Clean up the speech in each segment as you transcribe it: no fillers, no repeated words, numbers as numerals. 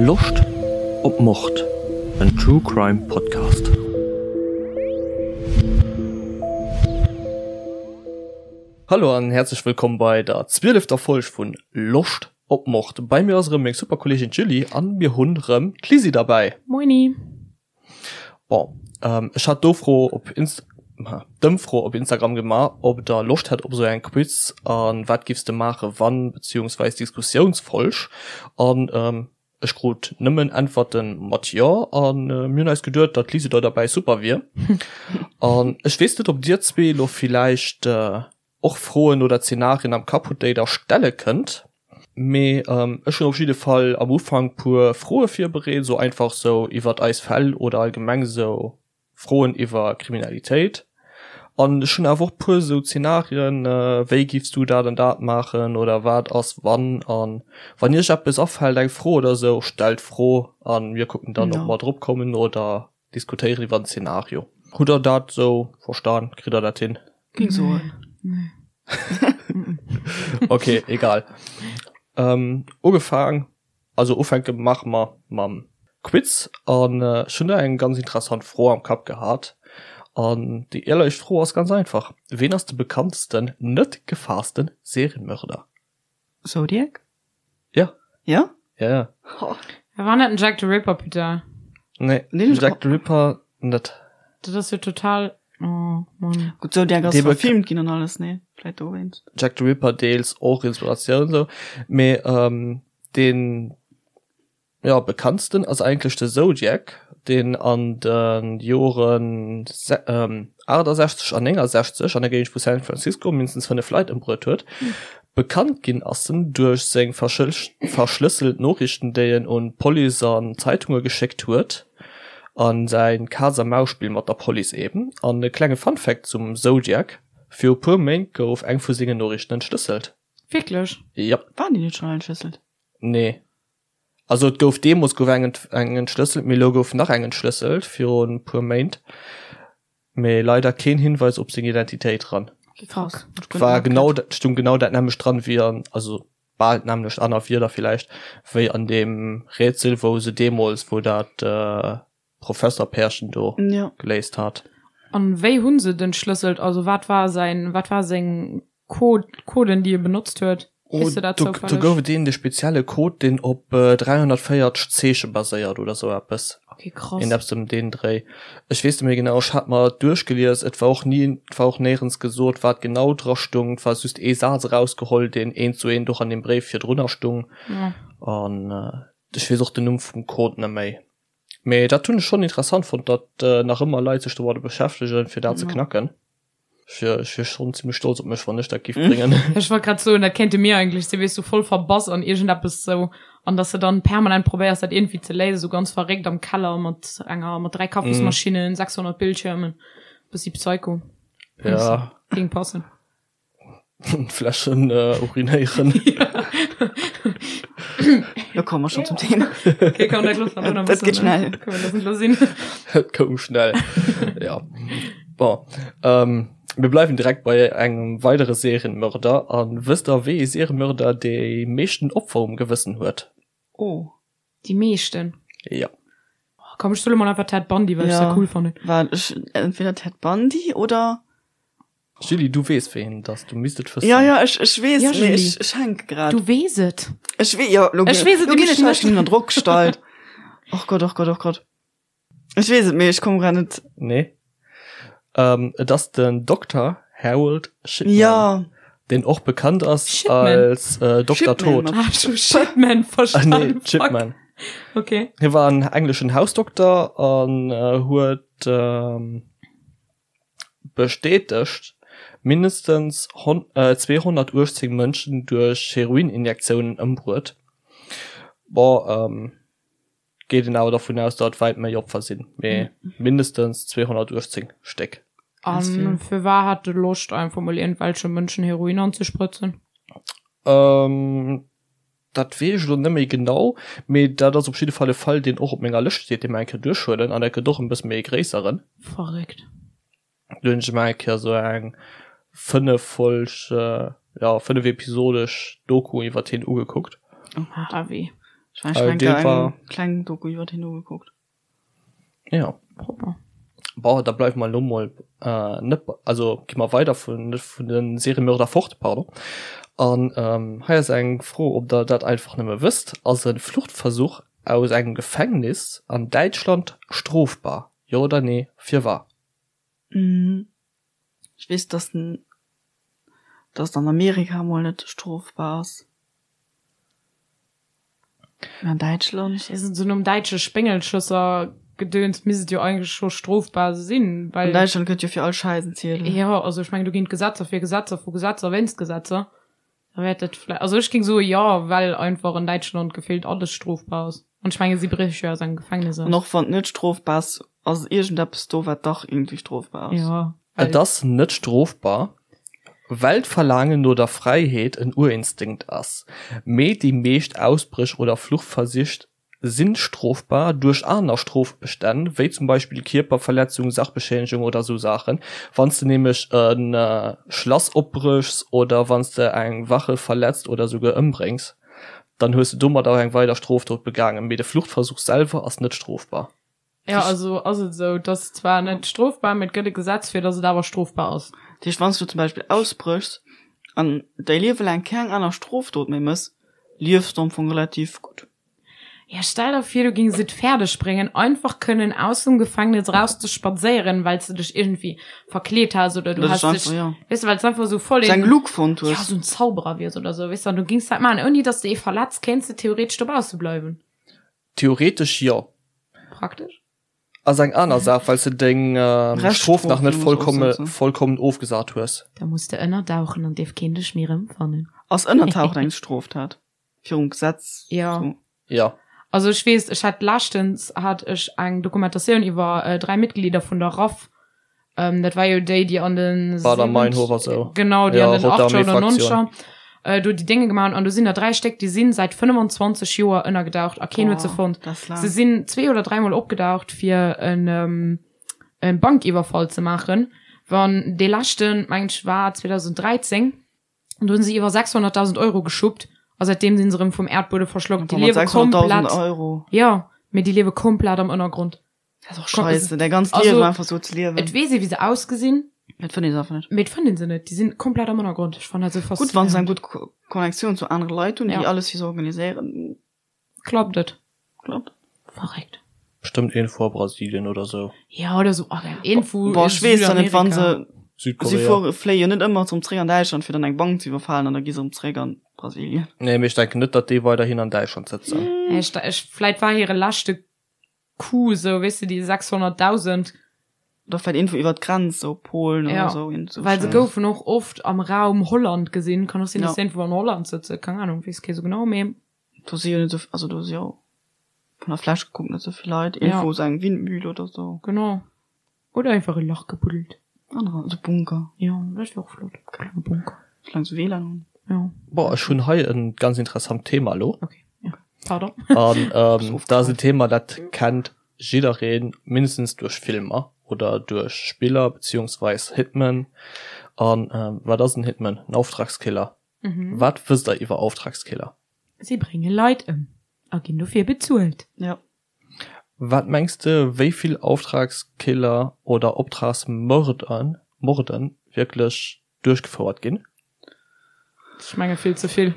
Loscht op Mord? En True Crime Podcast. Hallo an häerzlech wëllkomm bei der zwielefter Folg vun Loscht op Mord. Bei mir ass erëm meng super Kolleegin d'Julie an mir hunn erëm d'Lisi derbäi. Moini. Bon, ech hat d'Ofro op Inst d'Ëmfro op Instagram gemaach, ob der Loscht hätt op esou eng Quiz an wat giffs de maache wann, beziehungsweis Diskussiounsfolg an ech krut nëmmen Äntwerte mat jo an mir hunn eis geduet, datt d'Lisi do derbäi super wier. An ech weess net, ob dir zwee elo villäicht och Froen oder Zenarien am Kapp hutt, déi der stelle kënnt. Mee ech hunn op jidde Fall am Ufank puer Froe virbereet, sou einfach sou iwwert eis Fäll oder allgemeng sou Froen iwwer Kriminalitéit. An ech hunn awer och puer sou Zenarien, wéi giffs du dat an dat maachen oder wat ass wann. An wann iech eppes afält, eng Fro oder sou, stellt d'Fro an mir kucken dann, ob mer drop kommen oder Diskutéieren iwwer en Szenario. Hutt der dat sou verstan? Kritt der dat hin? Ging soen. Nee. Okay, egal. Ähm, ugefaang, also ufänke maache mer mam Quiz an ech hunn do eng ganz interessant Fro am Kapp gehat. An déi éierlech Fro ass ganz einfach, Ween ass de bekanntsten net gefaasste Serienmörder? Zodiac? Ja. Ja? Ja, ja. Oh. War net den Jack the Ripper, putain. Nee, den Jack the Ripper net. Dat ass jo total, oh Mann. Gutt, Zodiac ass verfilmt ginn an alles, nee? Vläit dowéinst. Jack the Ripper deels och Inspiratioun sou, mee ähm, deen Jo, bekanntsten ass eigentlech de Zodiac, deen an de Joren 68 an 69 an der Géigend vu San Francisco mindestens 5 Leit ëmbruet huet. Bekannt ginn ass en duerch seng verschlësselt Noriichten, déi en un d'Police an Zeitunge geschéckt huet, a säi Kaz-a-Maus-Spill mat der Police eben. An e klenge Fun-Fact zum Zodiac, Viru puer Méint gouf eng vu sengen Noriichten entschlësselt. Wierklech? Jop. Waren déi net schonn entschlësselt? Nee. Also et gouf deemools gouf eng eng entschlësselt, mee elo gouf nach eng entschlësselt virun e puer Méint, mee leider keen Hinweis op seng Identitéit dran. Okay, krass. Et war genau dat, stung genau dat nämmlecht dran wéi an, also bal d'nämmlecht, aner Wierder villäicht, wéi an deem Rätsel wou se deemools, wou dat Professerpärchen do ja. geléist hat. An wéi hunn se den schlësselt? Also wat war säin, wat war seng Code, Coden déi e benotzt huet? Oh, Weess de dat do, do zoufälleg? gouf et een de spezielle Code, deen op äh, 340 Zeeche baséiert oder sou eppes. Okay, krass. Een eppes ëm deen Dréi. Ech weess net méi genau, ech hat mer et duerchgelies, et war och ni, et war och néierens gesot, wat genau dra stung. Et war just ee Saz erausgeholl, deen eent zu eent och an deem Bréif virdrunner stung. Ja. An äh, ech weess och den Numm vum Code net méi. Mee dat hunn ech schonn interessant fonnt, datt nach ëmmer Leit sech domadder beschäftegen, fir dat ze knacken. Ech wier, ech wier schonn zimmlech stolz op mech, wann ech dat giff bréngen. Ech wollt grad soen, dat kéinte mir eigentlech sinn, weess du, voll verbass an iergendeppes sou, an dass de dann permanent probéiers, dat iergendwéi ze léisen, sou ganz verréckt am Keller mat enger, mat 3 Kaffismaschinnen, 600 Bildschirmen, bëssi Psycho. Ja. Géing passen. Fläschen äh, urinéieren. Lo komme mer schon zum Thema. Okay, komm, dat loosse mer Dat geht schnell. Können wir das lo sinn. Et koum schnell. ja. Bon. Ähm, mir bleiwen direkt bei engem weidere Serienmörder. An wësst der, wéi ee Serienmörder déi meeschten Opfer um Gewëssen huet? Oh. Déi meeschten? Ja. Oh, komm, ech soe mol einfach Ted Bundy, well ech Ja. dat cool fannen. War ech entweder Ted Bundy oder Julie, du weess ween et ass, du misst et wëssen. Ja, ja, ech, ech weess, Ja, mee Julie. ech, ech hänke grad. Du weess et. Ech wee, ja, lo, Ech weess et lo ginn nämlech ech hei net. schon ënner Drock gestallt. Och Gott, och Gott, och Gott. Ech weess et, mee ech komm grad net. Nee. Ähm, et ass den Dokter Harold Shipman. Ja. Deen och bekannt ass Shipman. als äh, Dokter Shipman Tod. mat Ah, ech hu Shitman Ah, verstanden. nee, Fuck. Shipman. Okay. Hie war en engleschen Hausdokter an äh, huet ähm, Bestätegt, mindestens 218 Mënschen duerch Heroininjektiounen ëmbruet. Bon, geet een awer dervun aus, datt et wäit méi Opfer sinn, mee mindestens 218 Stéck. A firwat hat e Loscht einfach mol iergendwelche Mënschen Heroin anzesprëtzen? Dat weess ech elo net méi genau, mee dat ass op jidde Fall e Fall, deen och op menger Lëscht steet, dee mer eng Kéier duerchhuelen, an dat gëtt och en bësse méi e gréisseren. Verréckt. Do hunn ech emol eng Kéier esou eng fënneffolg, jo, fënnefepisodesch Doku iwwert hien ugekuckt. Heavy. Ech mein, ech Äh, mein, dee eng war- kleng Doku iwwer hien ugekuckt. Ja. Proper. Bon, da bleiwe mer elo mol äh, net, also gi mer weider vun, net vun den Seriemörder fort, pardon. An ähm, hei ass eng Fro, ob der dat einfach nëmme wësst, Ass e Fluchtversuch aus engem Gefängnis an Däitschland strofbar? Jo oder nee? Firwat? Ech weess, dass den, dass an Amerika mol net strofbar ass. Mä an Däitschland? Ech weess net, esou nom däitsche Spéngelschësser-Gedöns misst et jo eigentlech scho strofbar sinn, An well. Däitschland gëtt jo fir all Schäiss en Ziedel. Jo, also ech mengen, do ginn d'Gesetzer fir Gesetzer vu Gesetzer wéinst Gesetzer. Da wäert dat vläicht, also ech géing soe jo, well einfach an Däitschland gefillt alles strofbar ass. An ech menge si bréche jo aus engem Gefängnis An aus. och wann et net strofbar ass, ass iergendeppes do, wat dach iergendwéi strofbar ass. Jo, Et well. ass net strofbar, well d'Verlaangen no der Fräiheet en Urinstinkt ass, mee déi meescht Ausbréch oder Fluchtversich si strofbar duerch aner Strofbestänn, wéi zum Beispill Kierperverletzung, Sachbeschädigung oder esou Saachen. Wann s de nämlech e Schlass opbréchs oder wann s de eng Wache verletzt oder esouguer ëmbréngs, dann hues de domat och eng weider Strofdot begaangen, mee de Fluchtversuch selwer ass net strofbar. Ja, also ass et esou, et ass zwar net strofbar, mee et gëtt e Gesetz fir, datt et awer strofbar ass. Dat heescht, wann s du zum Beispill ausbréchs an däi Liewe laang keng aner Strofdot méi mëss, liefs du am Fong relativ gutt. Ja, stell der vir, du gings et fäerdeg bréngen, einfach kënnen aus dem Gefängnis raus ze spadséieren, well s de dech iergendwéi verkleet has oder du Oder has dech dech, einfach, ja. weess de, well s einfach esou voll Sou eng een, Luke fonnt ja, hues. esou en Zauberer wiers oder esou, weess de, an du gings dat maachen, ouni datt s de ee verletz, kéints de theoretesch dobausse bleiwen. Theoretesch jo. Praktesch? Ass eng aner Saach, well s de deng Strof nach net vollkommen ofgesat hues. Da muss de ënnerdauchen an dierf keen dech méi erëmfannen. Ass ënnertauchen eng Stroftat virum Gesetz? Jo. Jo. Also ech weess, ech hat leschtens hat ech eng Dokumentatioun iwwer 3 Mitglieder vun der RAF Ähm, dat war jo déi, déi an den Bader-Meinhof a sou. Genau, déi Ja, an den Rote 80er oder Armee-Fraktion. 90er äh, do déi Dénge gemaach hunn. An do sinn der dräi Stéck, déi sinn säit 25 Joer ënnergedaucht a keen huet se Boah, fonnt. dat ass laang. Se sinn zwee oder dräimol opgedaucht, fir en, ähm, en Bankiwwerfall ze maachen. Wann dee leschten, mengen ech, war 2013. An do hunn se iwwer 600.000 Euro geschuppt a säitdeem sinn se erëm vum Äerdbuede verschlockt. Déi Boah, mat liewe 600.000 komplett, Euro. jo, mee déi liewe komplett am Ënnergrond. Dat ass och scheisse, däi ganzt Also, Liewen einfach sou ze liewen. Et weess ee wéi se ausgesinn. Mee et fënnt ee se einfach net. Mee et fënnt ee se net. Déi sinn komplett am Ënnergrond. Ech fannen dat sou Gutt, wann se eng faszinéierend. gutt Connectioun zu anere Leit hunn, déi Ja. alles fir se organiséieren, Klappt et. klappt. Verréckt. Bestëmmt iergendwou a Brasilien oder sou. Ja, oder sou, ach, iergendwou Boah, ech weess da net, wann se. Si Südkorea. fuere, fléie jo net ëmmer erëm zréck an Däitschland, fir dann eng Bank ze iwwerfalen an da gi se erëm zréck an Brasilien. Nee, mee ech denken net, datt déi weiderhin an Däitschland sëtzen. Ech, ech, vläit war hire leschte Coup sou, weess de, déi 600.000. Oder vläit iergendwou iwwer d'Grenz, sou Polen oder Ja, sou, iergend sou well se Schäiss. goufen och oft am Raum Holland gesinn. Kann och sinn, Ja. dass se iergendwou an Holland sëtzen, keng Ahnung, weess kee sou genau, mee. Do si jo net sou, also do si jo vun der Fläch gekuckt net sou vill Leit. Ja. Iergendwou sou eng Windmühle oder sou. Genau. Oder einfach e Lach gebuddelt. Anerer, sou Bunker. Jo, dat wier och flott, e klenge Bunker. Soulaang se WLAN hunn. Jo. Boah, ech hunn hei e ganz interessant Thema elo. Okay, ja. Pardon. An ähm, dat ass en Thema, dat kennt jiddereen, mindestens duerch Filmer oder duerch Spiller beziehungsweis Hitman. An ähm, wat ass en Hitman? En Auftragskiller. Mhm. Wat wësst der iwwer Auftragskiller? Si brénge Leit ëm a ginn dofir bezuelt. Ja. Wat mengs de, wéi vill Auftragskiller oder Optragsmörder, Morden wierklech duerchgefouert ginn? Ech menge vill ze vill.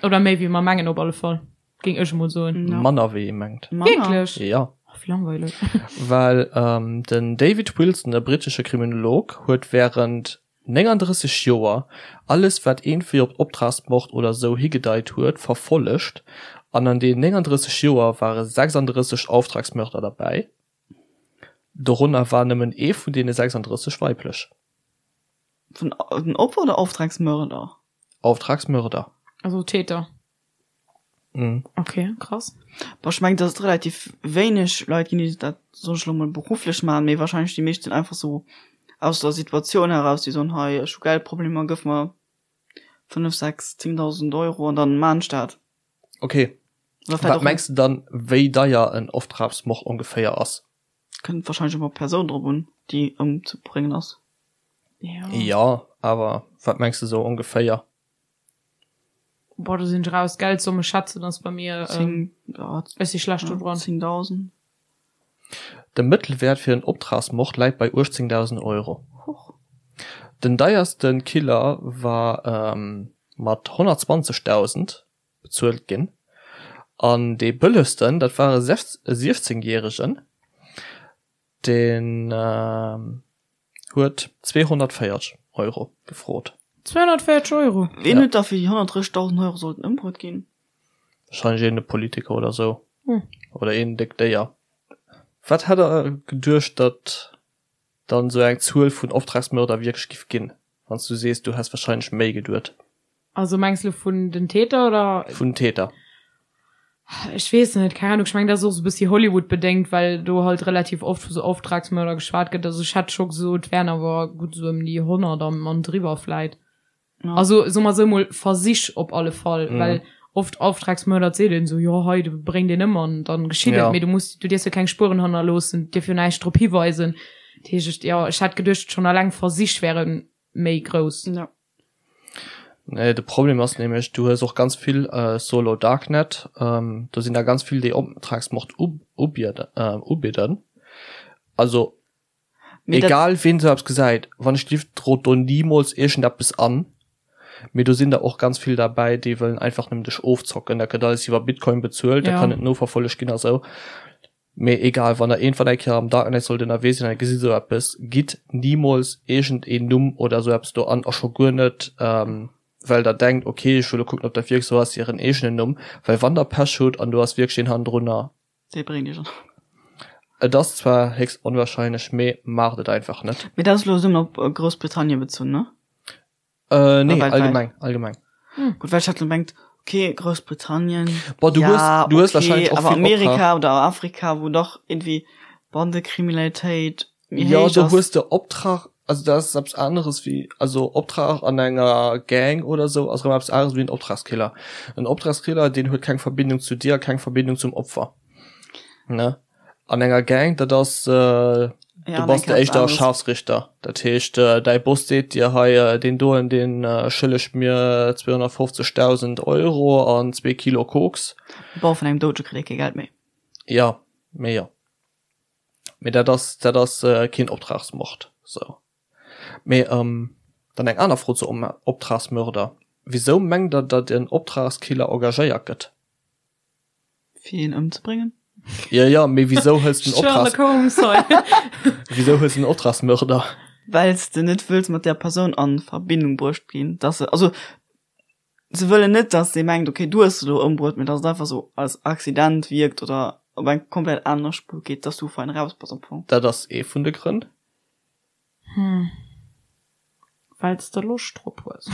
Oder méi wéi mer mengen op alle Fall, géing ech emol soen. Ja. Manner wéi ee mengt. Manner? Wierklech? Ja. Oh, wéi langweileg. Well den David Wilson, e brittesche Kriminolog, huet wärend 39 Joer alles wat eentvwéi op Optragsmord oder sou higedeit huet verfollegt an an deenen 39 Joer ware 36 Auftragsmörder derbäi. Dorënner war nëmmen ee vun deene 36 weiblech. Vun den Opfer oder Auftragsmörder? Auftragsmörder. Also Täter. Mhm. Okay, krass. Boah, ech mengen, dass et relativ wéineg Leit ginn, déi dat, soen ech elo mol, berufflech maachen, mee wahrscheinlech déi meescht sinn einfach sou aus der Situatioun heraus, déi soen, hei, ech hu Geldproblemer, gëff mer 5, 6, 10.000 Euro an dann maan ech dat. Okay. Oder vläicht Wat och mengs de dann, wéi deier en Auftragsmord ongeféier ass? Kënnt wahrscheinlech och op d'Persoun drop un, déi ëmzebréngen ass. Ja. Jo, awer wat mengs de sou ongeféier? Boah, do sinn ech raus. Geldsumme schätzen ass bei mir, ähm, 10, ja, ech si schlecht do dran. 10.000. De Mëttelwäert fir en Optragsmord läit bei 18.000 Euro. Huch. Den deierste Killer war mat 120.000 bezuelt ginn. An dee bëllegsten, dat war e 16 Järegen, deen huet 240 Euro gefrot. 240 Euro? Ween huet da fir déi 130.000 Euro sollten ëmbruet ginn? Wahrscheinlech een Politiker oder sou. Oder een déckt Déier. Wat hätt der geduecht, datt dann sou eng Zuel vun Optragsmörder wierklech giff ginn, wann s du sees, du häss wahrscheinlech méi geduet? Also mengs lo vun den Täter oder? Vun den Täter. Ech weess net, keng Ahnung. Ech mengen dat ass och sou e bëssi Hollywood bedéngt, well do halt relativ oft vu sou Auftragsmörder geschwat gëtt. Also ech hätt scho gesot, et wären awer gutt sou ëm déi 100 an an driwwer vläit. Also soe mer sou mol Versich op alle Fall, well oft Auftragsmörder, et seet een sou, jo hei du bréng deen ëm an dann geschitt et, mee du muss, du dierfs jo keng Spueren hannerloossen, dierf jo näischt drop hiweisen. Dat heescht, jo ech hätt geduecht schonn alleng Versich wäre méi grouss. Nee, de Problem ass nämlech, du hues och ganz vill Solo Darknet, do sinn der ganz vill déi Optragsmord ubidden. Also egal ween sou eppes gesäit, wann ech lift drot do nimools iergendeppes an, mee do sinn der och ganz vill derbäi déi wëllen einfach nëmmen dech ofzocken. Dat gëtt alles iwwer Bitcoin bezuelt, dat kann net noverfollegt ginn a sou. Mee egal, wann der iergendwann eng Kéier am Darknet sollt ënnerwee sinn an der gesitt esou eppes, gitt nimools iergend een Numm oder esou eppes do an, a scho guer net well der denkt, ok ech wëll elo kucken ob dat wierklech esou ass, hiren eegenen Numm, well wann der Pech hutt an do ass wierklech een hannendrunner, Dee bréngt iech an. Et ass zwar héchst onwahrscheinlech, mee maacht et einfach net. Mee dat ass elo nëmmen op Groussbritannien bezunn, ne? Äh, nee, allgemeng, allgemeng. Hm. Gut, well ech hat lo mengt, okay, Groussbritannien, Boah, du ja, hues, du hues okay, wahrscheinlich och awer vill Amerika Optrag. oder Afrika, wou dach irgendwie Bandekriminalitéit méi Ja, héich do ass. hues de Optrag, also dat ass eppes aneres wéi, also Optrag an enger Gang oder sou ass erëm eppes aneres wéi en Optragskiller. En Optragskiller, deen huet keng Verbindung zu dir, keng Verbindung zum Opfer, ne? An enger Gang, dat ass, du Ja, bass de éischter Scharfsrichter. Dat heescht, däi Boss seet dir, hei, deen doen, dee schëllegt mir 250.000 Euro an zwee Kilo Koks. Bon, vun engem Doudege kritt ee kee Geld méi. Jo, mee jo. Mee dat ass, dat ass keen Optragsmord, sou. Mee dann eng aner Fro zu Optragsmörder, Wisou mengt der, datt en Optragskiller engagéiert gëtt? Fir een ëmzebréngen? Ja, ja, mee wisou hëls den Optrags... Sherlock Holmes hei. Wisou hëls den Optragsmörder? Well s de net wëlls mat där Persoun a Verbindung bruecht ginn, dass se, also se wëllen net, dass dee mengt, okay, du hues se elo ëmbruet, mee dass et einfach sou als Accident wierkt oder op eng komplett aner Spuer geet, dass du fein raus bass am Fong. Dat ass ee vun de Grënn. Hm. Wells de Loscht drop hues.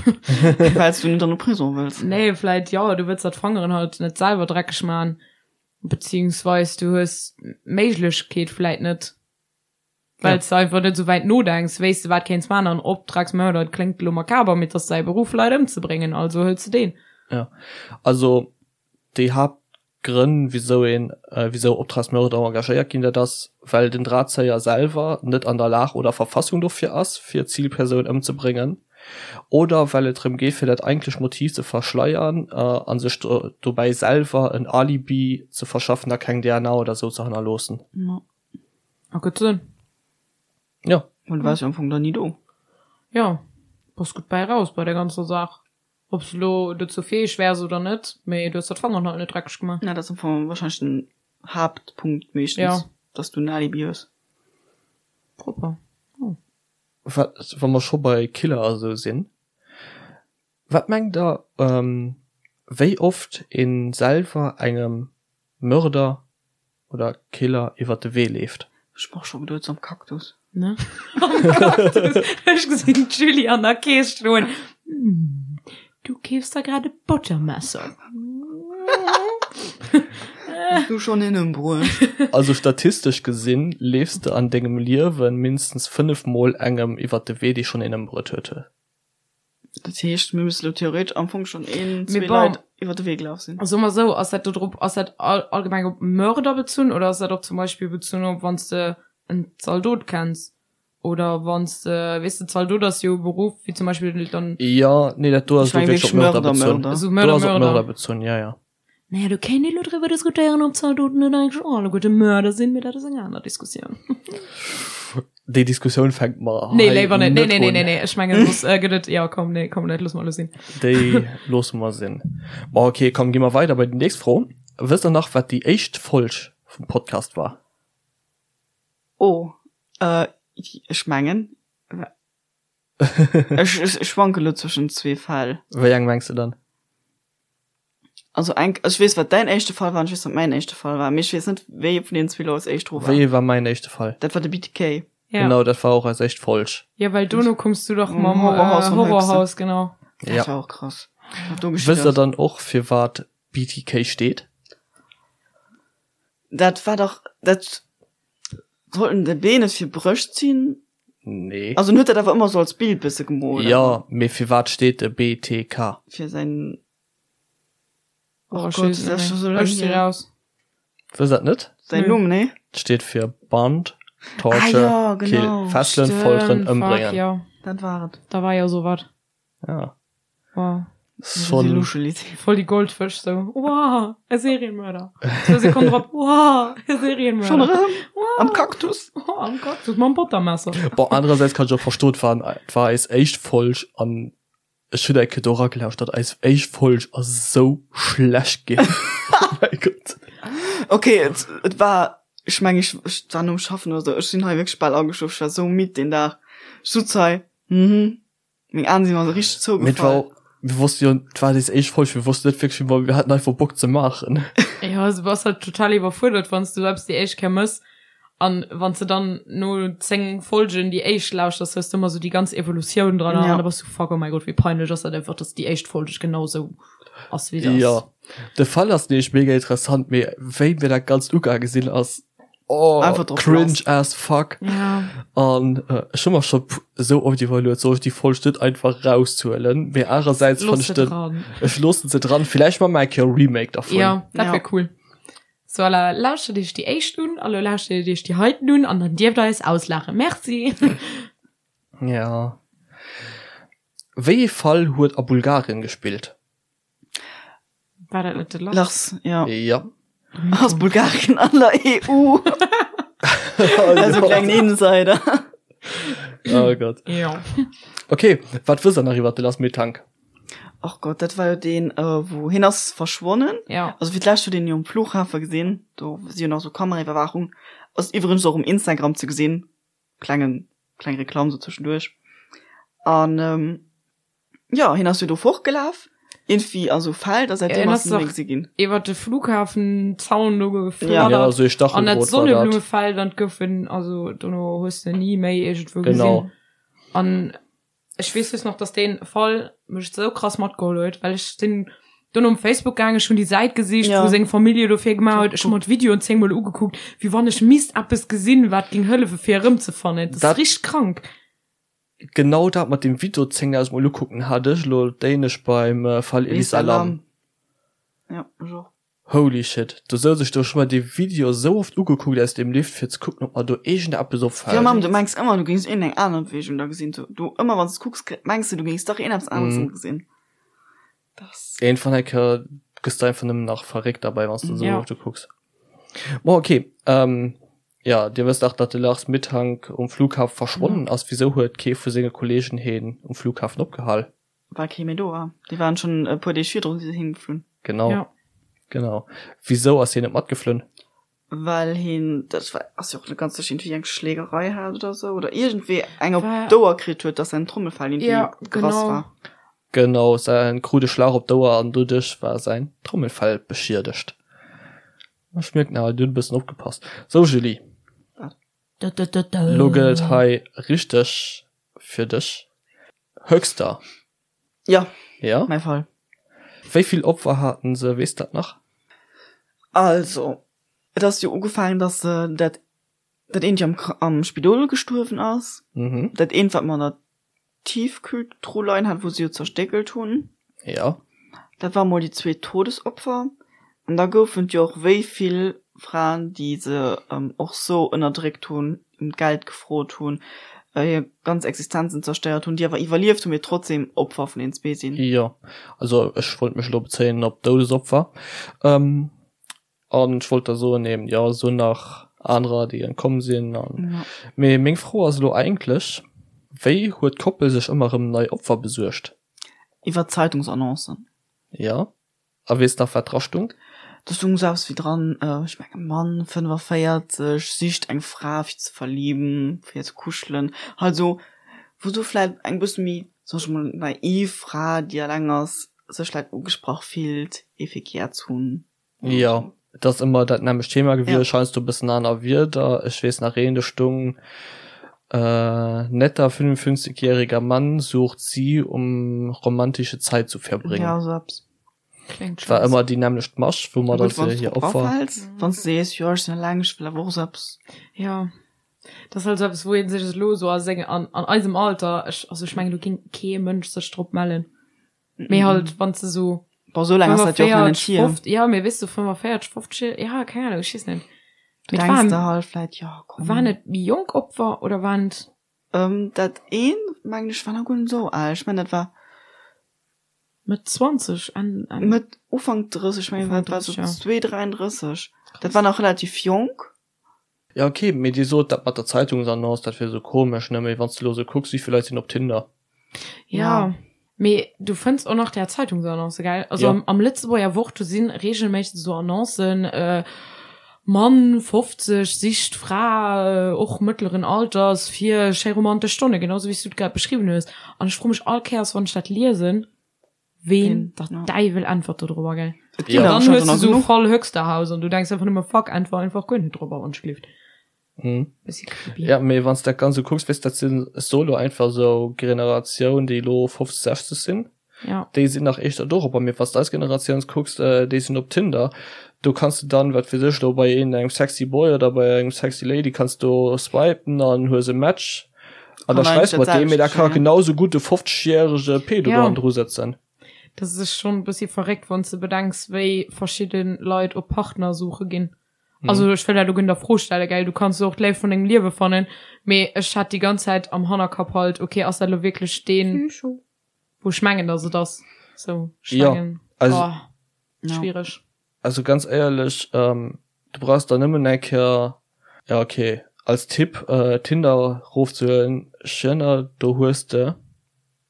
Wells du net an de Prison wëlls. Nee, vläit jo, du wëlls der d'Fangeren halt net selwer dreckeg man, beziehungsweis du hues d'Méiglechkeet vläit net, wells de einfach net esou wäit nodenks, wéis de wat kéints man an Optragsmörder, et kléngt elo makaber, mee et ass säi Beruff Leit ëmzebréngen, also hëls de deen. Jo, also déi Haapt Grënn, wisou een, wisou Optragsmörder engagéiert ginn, dat ass, well den Drahtzéier selwer net an der Lag oder Verfassung dofir ass, fir d'Zilpersoun ëmzebréngen, oder well et drëm geet, fir dat eigentlecht Motiv ze verschleiern a sech dobäi selwer en Alibi ze verschaffen a keng DNA oder sou ze hannerloossen. Ergëtt Sënn. Jo. Well du waars jo am Fong dann ni do. Jo, bass gutt bäi raus bei der ganzer Saach. Ob s de lo dozou fäeg wäers oder net, mee du hues der d'Fangeren halt net dreckeg gemaach. Ja, dat ass am Fong wahrscheinlech den Haaptpunkt meeschtens, Ja. dass du en Alibi hues. Propper. Oh. Wat, wa mer scho bei Killer a sou sinn, wat mengt der, wéi oft ee selwer engem Mörder oder Killer iwwert de Wee leeft. Ech brauch scho geduet am Cactus. Ne? Am Cactus. Ech gesinn d'Julie an der Kees stoen. Hm, du keefs der grad e Bottermesser. Hues du schonn een ëmbruecht? Also statistesch gesinn leefs de an dengem Liewen mindestens 5 mol engem iwwert de Wee dee schonn een ëmbruet huet. Dat heescht, mir müssen elo theoretesch am Fong schon een, Mee zwee bon. Leit iwwer de Wee gelaf sinn. Soe mer esou, ass dat do drop, ass dat all, allgemeng op Mörder bezunn oder ass dat och zum Beispill bezunn op wann s de en Zaldot kenns? Oder wann s de, weess de, Zaldot ass jo e Beruff, wéi zum Beispill dann. Jo, nee, dat do ass elo wierklech op Mörder bezunn. Esou Mörder, Do ass op Mörder. Mörder bezunn, jo, jo. Naja, do kéint ee lo driwwer diskutéieren, ob Zaldoten net eigentlech och alleguerte Mörder sinn, mee dat ass eng aner Diskussioun. Déi Diskussioun fänke mer Nee, hei léiwer net. Nee, net nee, nee, un. nee, nee. Ech mengen, soss gëtt et, jo, komm, nee, komm, dat loosse mer elo sinn. Déi loosse mer sinn. Bon, okay, komm, gi mer weider bei déi nächst Fro. Wësst der nach, wat déi éischt Folg vum Podcast war? Oh, äh, ech mengen, ech, ech, ech schwanke lo zwëschen zwee Fäll. Wéi eng mengs de dann? Also eng, ech weess, wat däin éischte Fall war an ech weess, wat mäin éischte Fall war, mee ech weess net, wéi ee vun deenen zwee lo als éischt dru war. Wéi ee war mäin éischte Fall? Dat war de BTK. Ja. Genau, dat war och eis éischt Folg. Ja, well dono koums du dach mam Horrorhaus äh, von Horrorhaus, genau. Dat Ja. war och krass. Wat do geschitt Wësst der ass. dann och, fir wat BTK steet? Dat war dach, dat sollten de B net fir Brëscht sinn? Nee. Also en huet dat awer ëmmer sou als Bild bësse gemoolt. Jo, mee fir wat steet de BTK? Fir säin Oh, Oh ech Gott, weess dat ass net scho sou méi. laang Ech si hier. raus. Wësst dat net? Säin Nö. Numm, nee? Et steet fir Band, Ah Torture, jo, Kill, genau. Fesselen, Folteren, Stimmt, fuck, Ëmbréngen. jo. Dat war et. Da war jo sou wat. Ja. Wow. Schon. Voll déi Goldfësch sou. Wow, e Serienmörder. Zwou Sekonnen drop, wow, e Serienmörder. Schon erëm? Wow. Am Kaktus? Oh, am Kaktus, mam Bottermesser. Bon, anerersäits kann ech och verstoen, et war, et war eis éischt Folg an ech hunn eng Kéier do eragelauschtert, eis éischt Folg ass esou schlecht ginn. Oh mäi Gott. Okay, et, et war, ech meng, ech, ech war nom Schaffen oder sou, ech sinn hei wierklech bal ageschlof, ech war sou midd deen Dag. Ech sutz hei, mhm. Meng Aen sinn mer sou richteg Mee et war zougefall. och, mir wosste jo, et war eis éischt Folg, mir wossten net wierklech, wéi mer, mir haten einfach Bock ze maachen. Jo, also du bass halt total iwwerfuerdert, wann s du eppes déi éischt Kéier mëss an wann s de dann no 10 Folgen déi éischt lauschters, hues du ëmmer sou déi ganz Evolutioun dran Ja. an da bass du fuck, oh mäi Gott, wéi peinlech ass dat einfach, dass déi éischt Folg genau sou ass wéi se ass. Jo, de Fall ass nämlech mega interessant, mee wéi mir dat Ganzt ugaange sinn, ass oh, Einfach drauf cringe lass. as fuck. Ja. An äh, ech hu mer scho sou oft iwwerluet, soll ech déi Folg net einfach raushuelen, mee anerersäits fand Looss ech se den, dran. ech loossen se dran, villäicht maache mer eng Kéier e Remake dervun. Ja, dat Ja. wär cool. So à la, lauschtert iech déi éischt un, a lo lauschtert iech déi heiten un an dann dierft der eis auslaachen. Merci. Ja. Wéi ee Fall huet a Bulgarien gespillt? War dat net de Lars? Lars, ja. Ja. Ass Bulgarien an der EU? Also klengen Insider. Oh Gott. Ja. Okay, wat wësst der nach iwwer de Lars Mittank? Och Gott, dat war jo deen, äh, wou hien ass verschwonnen. Ja. Also fir d'lescht huet een jo um Flughafe gesinn, do si jo nach sou Kameraiwwerwaachung. Ass iwwregens och um Instagram ze gesinn, klengen, kleng Reklamm sou zwischenduerch. An ähm, Jo, hien ass jo do fortgelaf, iergendwéi a sou Feld, a säitdeem Hien ass ass en net méi dach gesi ginn. iwwer de Flughafenzaun do Ja, gefladdert sou ee an dat Stacheldraht war dat. Sonneblumefeld an et gouf en, also dono hues de ni méi iergendwou Genau. gesinn. An ech weess just nach, dass dee Fall mech sou krass matgeholl huet, well ech sinn dono um Facebook gaangen, ech hunn déi Säit gesicht, Ja. wou seng Famillje dofir gemaach huet, ech hu mer d'Videoen zéngmol ugekuckt, wéi wann ech misst eppes gesinn, wat géing hëllefe fir e rëmzefannen. Dat ass Dat- richteg krank. Genau dat mat dem Video 10.000 mol ukucken hat ech elo d'éinescht beim Fall Elisa Lam. Ja, ech och. Holy shit, do souz ech do, ech hu mer dee Video esou oft ugekuckt aus dem Lift fir ze kucken ob mer do iergendeppes Jo opfält. Mamm, du mengs ëmmer du géings iergendeng aner Beweegung da gesinn. Du, du ëmmer wann s de kucks mengs de du géings dach iergendeppes aneres Mhm. gesinn. Das. Iergendwann eng Kéier gëss de einfach nëmmen nach verréckt derbäi wann s de esou Ja. oft ukucks. Bon ok, ähm, Ja, dir wësst dach, datt de Lars Mittank um Flughafe verschwonnen ass. Wisou huet kee vu senge Kolleegen heen um Flughafen opgehal? Well kee méi do war. Déi waren schonn e puer Deeg virdrun si se heemgeflunn. Genau. Ja. Genau. Wisou ass hien net matgeflunn? Well hien, dat war, ass jo och net ganz sécher, iergendwéi eng Schlägerei hat oder sou oder iergendwéi eng op War- d'Ouer kritt huet, datt säin Trommelfell iergendwéi Ja, gerass genau. war. Genau, säin krut e Schlag op d'Ouer an doduerch war säin Trommelfell beschiedegt. Ech mierken awer, dir hutt e bëssen opgepasst. Sou Julie, lo gëtt et hei richteg fir dech. Höxter. Ja, Ja? mäi Fall. Wéi vill Opfer haten se, weess dat nach? Also, et ass jo ugefaangen, datt se dat, dat eent jo am, am Spidol gestuerwen ass. Mhm. Dat eent, wat mer an der Tiefkühltruh leien hat, wou se jo zerstéckelt hunn. Ja. Dat war mol déi zweet Todesopfer. An da goufen et jo och wéi vill Fraen, déi se och sou ënnerdréckt hunn, ëm d'Geld gefrot hunn. Hir ganz Existenzen zerstéiert hunn, déi awer iwwerlieft hunn, mee trotzdem Opfer vun den zwee sinn. Jo, also ech wollt mech elo bezéien op Doudesopfer. An ech wollt da soen eben, jo, esou nach anerer, déi entkomm sinn an. Mee meng Fro ass elo eigentlech, Wéi huet d'Koppel sech ëmmer erëm nei Opfer besuergt? Iwwer Zeitungsannoncen. Jo. A weess nach wat dra stung? Do stung sou eppes wéi dran, ech mengen Mann 45 sicht eng Fra fir ze verlieben, fir ze kuschelen, halt sou wou sou vläit eng bësse méi, soen ech mol, naiv Fra déi alleng ass, sech vläit ugesprach fillt ee fir gär ze hunn. Jo, et ass ëmmer dat nämmlecht Thema gewiescht, heiansdo e bëssen aner Wierder. Ech weess nach een, do stung, Netter 55 jähriger Mann sucht sie um romantische Zeit zu verbringen. Ja, sou eppes. Kléngt War scheiss. ëmmer déi nämmlecht Masch, wou mer Gutt, da wann se s hir drop Opfer. rafäls, wann s de sees, jo ech sinn eleng, ech wëll awer och sou eppes. Jo, dat ass halt sou eppes, wou ee sech elo sou a senge, an, an eisem Alter, ech, also ech mengen, do géing kee Mënsch sech drop mellen. Mee halt, wann s de sou Bon, sou laang ass dat jo och nach net 45, hier. 50, jo, mee weess du, 45, 50, ja, keng Ahnung, ech weess net. Du Mee et denks waren, der halt vläit, jo komm. waren et méi jonk Opfer oder waren et. Dat eent, mengen ech, war nach guer net esou al. Ech mengen, dat war. Mëtt 20, Enn, Enn. Mëtt, Ufank 30, ech mengen, Ufank dat war sou 30, ja. 2, 33. Dat war nach relativ jonk. Ja ok, mee dir sot dat mat der Zeitungsannonce, dat wier sou komesch, ne? Mee wann s de elo sou kucks, wéi vill Leit sinn op Tinder? Ja, mee du fënns och nach där Zeitungsannonce, gell? Also Ja. am, am Lëtzebuerger Wort, do si reegelméisseg sou Annoncen, äh, Mann, 50, sicht Fra, och mëttleren Alters, fir schéi romantesch Stonne, genau sou wéi s du et grad beschriwwen hues. An ech froe mech all Kéiers, wann ech dat liesen, Ween der Däiwel äntwert do drobber, gell? Et ginn An der dann hues anscheinend du nach sou genuch. Fall Höxterhaus an du denks einfach nëmme fuck, äntwer einfach guer net drobber, wann ech gelift. Mhm. Bëssi creepy. Ja, mee wann s dat ganz sou kucks, weess dat sinn solo einfach sou Generatioun, déi elo 50, 60 sinn. Ja. Déi sinn nach éischter dorobber, mee wann s d'eis Generatioun kucks, déi sinn op Tinder. Do kanns de dann, wat weess ech elo, bei een engem sexy Boy oder bei engem sexy Lady kanns do swipen an hues e Match. An da Kann schreifs eigentlich mat dat deem, mee da selwecht ka geschéien. genau sou gutt e 50 järege Pedo Ja. do hannendru sëtzen. Dat ass schonn e bëssi verréckt, wann s de bedenks, wéi verschidde Leit op Partnersuche ginn. Also ech wëll dat elo guer net a Fro stellen, gell, du kanns och d'Léift vun dengem Liewe fannen, mee ech hat déi ganz Zäit am Hannerkapp halt, okay, ass dat elo wierklech deen, wou ech mengen, dass et ass? Sou, ech Ja, mengen, also- oh, Ja. schwiereg. Also ganz éierlech, du brauchs der nëmmen eng Kéier, ja ok, als Tipp, Tinder rofzehuelen, Schënner, do hues de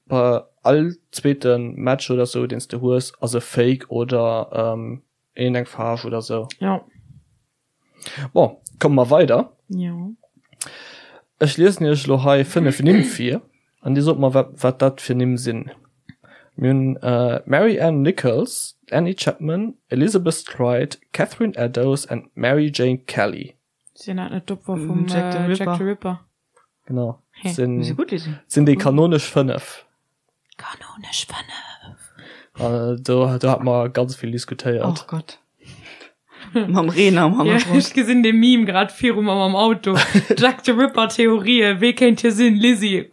bei all zweete Match oder sou deen s de hues ass e Fake oder een eng Faarf oder sou. Ja. Bon, komme mer weider. Jo. Ech liesen iech elo hei 5 Nimm vir an dir sot mer wat, wat dat fir Nimm sinn. Mir hunn Mary Ann Nichols, Annie Chapman, Elizabeth Stride, Catherine Eddowes and Mary Jane Kelly. Sinn dat net d'Opfer vum Jack the Jack Ripper? the Ripper? Genau. Hä? Sinn, Si gutt, Lisi. sinn déi kanonesch 5. Kanonesch 5. Äh, do, do hat mer ganz vill diskutéiert. Och Gott. Mam Reen am Ja, Hannergrond. ech gesinn de Meme grad viru mer mam Auto. Jack the Ripper Theorien, wee kéint hie sinn? Lizzie,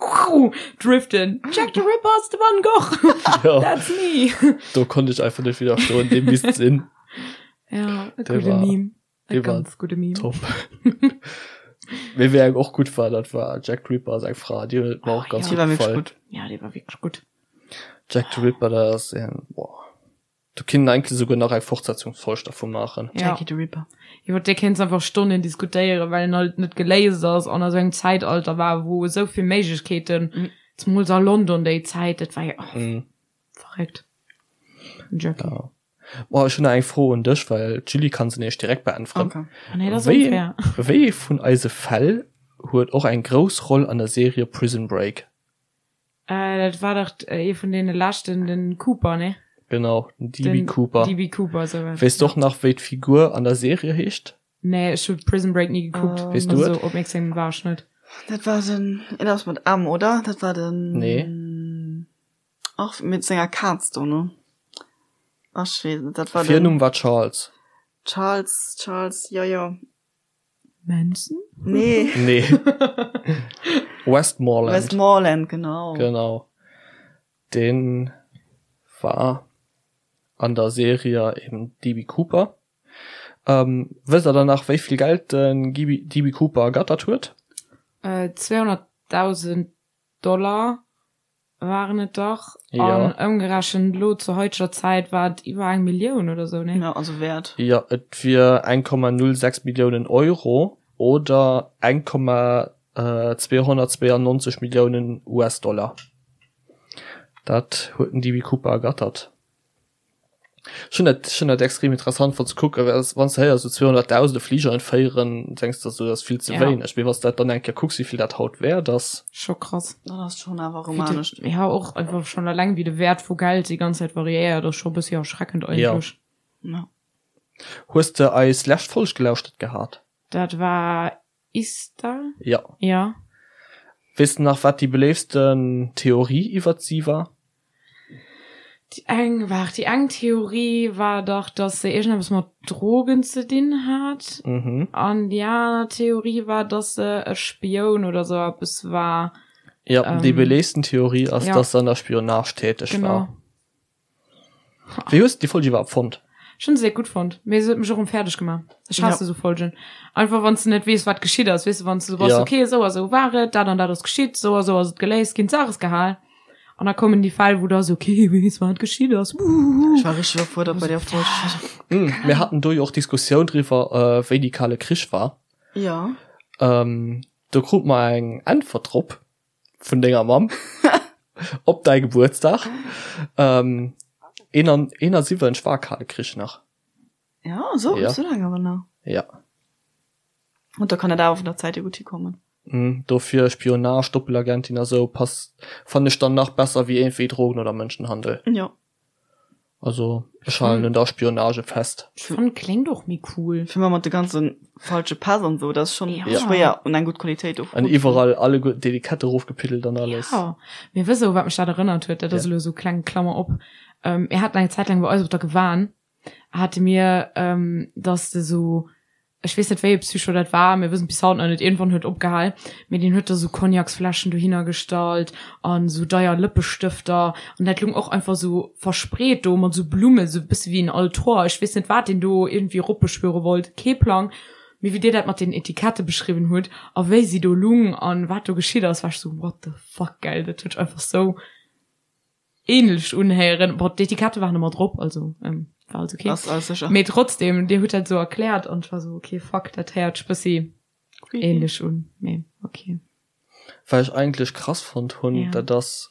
driften. Jack the Ripper ass de Van Gogh. Ja, That's me. do konnt ech einfach net widderstoen, dee misst sinn. Ja, e Der gudde war- Meme. E der war ganz gudde Meme. Top. Mee wéi eng och gutt war, dat war Jack Ripper seng Fra, déi huet mer och Oh, ganz ja. Die war gutt wirklich gefall. gut. Ja, dee war wierklech gutt. Jack the Ripper, dat ass een, boah. Do kinnt een eigentlech esouguer nach eng Fortsetzungsfolg dervu maachen. Ja. Jackie the Ripper. Iwwer dee kéints einfach Stonnen diskutéieren, well en halt net geléist ass an a sou engem Zäitalter war, wou esou vill Méiglechkeeten, Mhm. zemools a London déi Zäit, dat war jo, oh, Mhm. verréckt. Den Jackie. Ja. Boah, ech hunn nach eng Fro un dech, well d'Julie kann se nämlech direkt beäntweren. Okay. Ah, nee, dat ass Wéi, unfair. wéi ee vun eise Fäll huet och eng grouss Roll an der Serie Prison Break? Äh, dat war dach ee vun deene leschten, den Cooper, ne? Genau, den DB Den Cooper. DB Cooper, sou was. Weess du och nach, wéi d'Figur an der Serie heescht? Nee, ech hu Prison Break ni gekuckt. Ähm, Weess du Also et? opmierksam war ech net. Dat war den, een ass mat M, oder? Dat war den. Nee. Ach, mit senger Kaz do, ne? Ach, ech weess net, dat war den. Virnumm war Charles. Charles, Charles, jo, jo. Manson? Nee. Nee. Westmoreland. Westmoreland, genau. Genau. Den war an der Serie eben DB Cooper. Ähm, wësst der dann nach, wéi vill Geld den DB Cooper ergattert huet? Äh, 200. 200.000 Dollar waren et dach. Ja. An ëmgerechent elo zur haiteger Zäit war et iwwer eng Millioun oder sou, nee? Ja, also Wäert. Jo, et wier 1,06 Milliounen Euro oder 1,292 Milliounen US-Dollar. Dat huet den DB Cooper ergattert. Ech hunn dat, ech hunn dat extrem interessant fonnt ze kucken, well wann s de héiers esou 200.000 e Fliger entféieren, denks de esou, dat ass vill ze Ja. wéineg. Mee wann s de dat dann eng Kéier kucks, wéi vill dat haut wäert ass. Scho krass. Dat ass schonn awer Wéi erëm de, anescht. ja, och einfach schonn eleng wéi de Wäert vu Geld déi ganz Zäit variéiert, ass scho e bëssi erschreckend Ja. eigentlech. Ja. Hues de eis lescht Folg gelauschtert gehat? Dat war Ista? Ja. Ja. Weess de nach, wat déi beléiftsten Theorie iwwert si war? Déi eng, waart, déi eng Theorie war dach, dass se iergendeppes mat Drogen ze dinn hat. Mhm. An déi aner Theorie war, dass se e Spioun oder sou eppes war. Ja, déi Ähm, beléiftsten Theorie ass, ja. dass se an der Spionage täteg Genau. war. Wéi hues de déi Folg iwwerhaapt fonnt? Ech hunn se gutt fonnt, mee se huet mech och erëm fäerdeg gemaach. Ech hasse sou Folgen. Einfach wann s de net weess, wat geschitt ass, weess de, wann s de sou bass, Ja. okay, esou a sou war et, dat an dat ass geschitt, esou a sou ass et geléist ginn, d'Saach ass gehal. An da kommen déi Fäll, wou du ass, okay, weess wat geschitt ass, wuhuhu. Ech war richteg iwwerfuerdert bei der Folg. Ech war sou, Mm, mir haten do jo och Diskussioun driwwer, wéi déi Kale Krich war. Ja. Ähm, do krut mer eng Äntwert drop. vun denger Mamm op däi Gebuertsdag. Ähm, 71 war Kale Krich nach. Ja, so, Ja. so lange awer nach. Ja. Und da kann dat awer vun der Zäit hier gutt hikommen. Mm, dofir Spionage, Doppelagentin a sou passt, fannen ech dann nach besser wéi iergendwéi Drogen oder Mënschenhandel. Ja. Also ech halen un der Spionage fest. Ech fannen kléngt och méi cool. Fir mat de ganze falsche Päss an sou, dat ass schon Ja. schwéier un eng gutt Qualitéit do An iwwerall alleguerten d'Etikette erofgepiddelt an alles. Ja, mee wëss e wat mech dat erënnert huet, dat ass Ja. elo sou kleng Klammer op, mir haten eng Zäit laang bei eis op der Gewan hate mir, dass de sou ech weess net wéi e Psycho dat war, mir wëssen et bis haut nach net, iergendwann huet opgehal, mee deen huet da sou Cognacsfläschen dohinner gestallt an sou deier Lëppestëfter an dat lung och einfach sou verspreet do mat sou Blummen, sou e bësse wéi en Altor, ech weess net wat deen do iergendwéi eropbeschwöre wollt, kee Plang, mee wéi dir dat mat den Etikette beschriwwen hutt a wéi si do lung an wat do geschitt ass, war ech sou what the fuck, gell, dat huet sech einfach sou. ähnlech unhéieren. Bon, d'Etikette waren ëmmer drop, also ähm, war alles okay. Ass alles sécher. Mee trotzdem, Dir hutt dat sou erkläert an ech war sou, okay, fuck, dat héiert sech bëssi Creepy. ähnlech un, mee okay. Wat ech eigentlech krass fonnt hunn, Ja. dat ass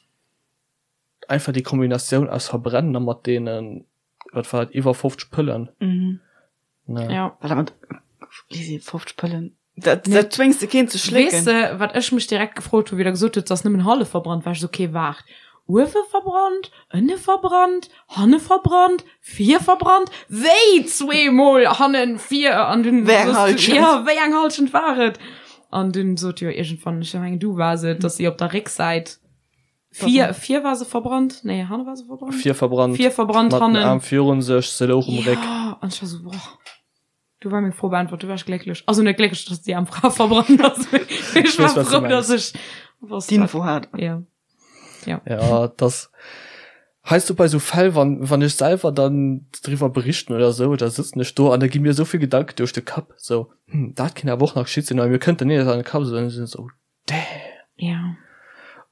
einfach déi Kombinatioun aus Verbrennen a mat deenen, wat war et, iwwer 50 Pëllen. Mhm. Ne. Ja. Wat mat, Lisi, 50 Pëllen? Dat, Nee. dat zwéngs de keen ze Weess schlécken. de, wat ech mech direkt gefrot hu, wéi der gesot hutt, se ass nëmmen hallef verbrannt, war ech sou, okay, waart, uewe verbrannt, ënne verbrannt, hanne verbrannt, vir verbrannt, wéi zweemol hannen, vir an dunn Wéi eng soss du, Halschent? ja, wéi eng Halschent war et? An dunn sot jo iergendwann, ech mengen du waars et, dass si op der Récksäit vir, vir war se verbrannt, nee, hanne war se verbrannt? Vir verbrannt, Vir verbrannt, mat den hannen. Aarm virun sech, se louch um Réck. Ja, an ech war sou, boah. Du war meng Fro beantwort, du war ech glécklech. Also net glécklech, dass déi aarm Fra verbrannt ass, mee ech war weess, wat du frou, dass mengs. ech wosst, wat. D'Info hat. Ja. Ja. Ja, das heißt du bei so Fäll, wann, wann ech selwer dann driwwer berichten oder sou, da sëtzen ech do an da gi mir sou vill Gedanken duerch de Kapp, sou, hm, dat kéint awer och nach geschitt sinn, awer mir kënnt dann net an de Kapp, sou, dann sinn ech sou, Damn. Ja.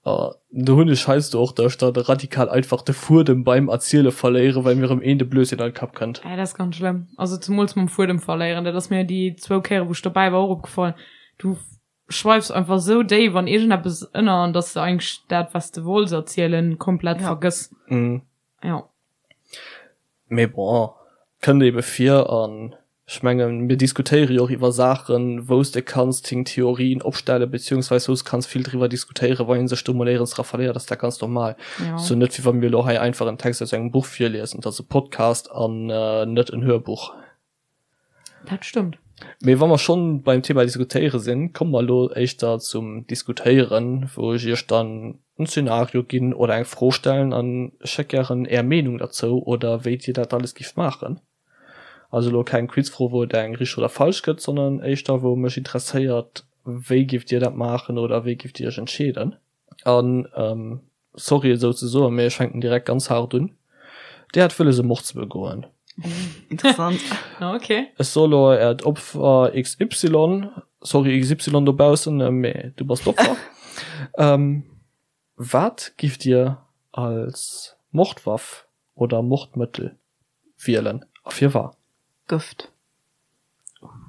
Uh, do hunn ech heiansdo och, dass ech dann radikal einfach de Fuedem beim Erziele verléieren, well mir erëm een de Blödsinn an de Kapp kënnt. Ja, dat ass ganz schlëmm. Also zemools mam Fuedem verléieren, dat ass mir déi zwou Kéiere wou ech dobäi war och opgefall. Du schweifs einfach sou déif an iergendeppes ënner, an dass de eigentlech dat wat s de wollts erzielen komplett Ja. vergëss. Mm. Ja. Mee bon, kënnt ebe vir an ech mengen, mir diskutéiere jo och iwwer Saachen, wou s de kanns deng Theorien opstellen, beziehungsweis wou s kanns vill driwwer diskutéieren. Wann ee sech do mol éierens dra verléiert, ass dat ganz normal. Ja. Sou net wéi wa mir elo hei einfach en Text aus engem Buch virliesen. Et ass e Podcast an net en Hörbuch. Dat stëmmt. Mee wa mer schonn beim Thema diskutéiere sinn, komme mer elo éischter zum Diskutéieren, wou ech iech dann en Szenario ginn oder eng Fro stellen an ech hätt gären är Meenung derzou oder wéi dir dat alles gift maachen. Also elo keng Quizfro, wou et eng richteg oder falsch gëtt, sondern éischter wou mech interesséiert, wéi gift dir dat maachen oder wéi gift dir iech entscheeden. An sorry et esou ze soen, mee ech fänken direkt ganz haart un, Dir hat wëlles e Mord ze begoen. Interessant. Ok. Ech soe lo äert Opfer XY, sorry XY dobaussen, mee du bass d'Opfer. Ähm, wat giff Dir als Mordwaff oder Mordmëttel wielen a firwat? Gëft.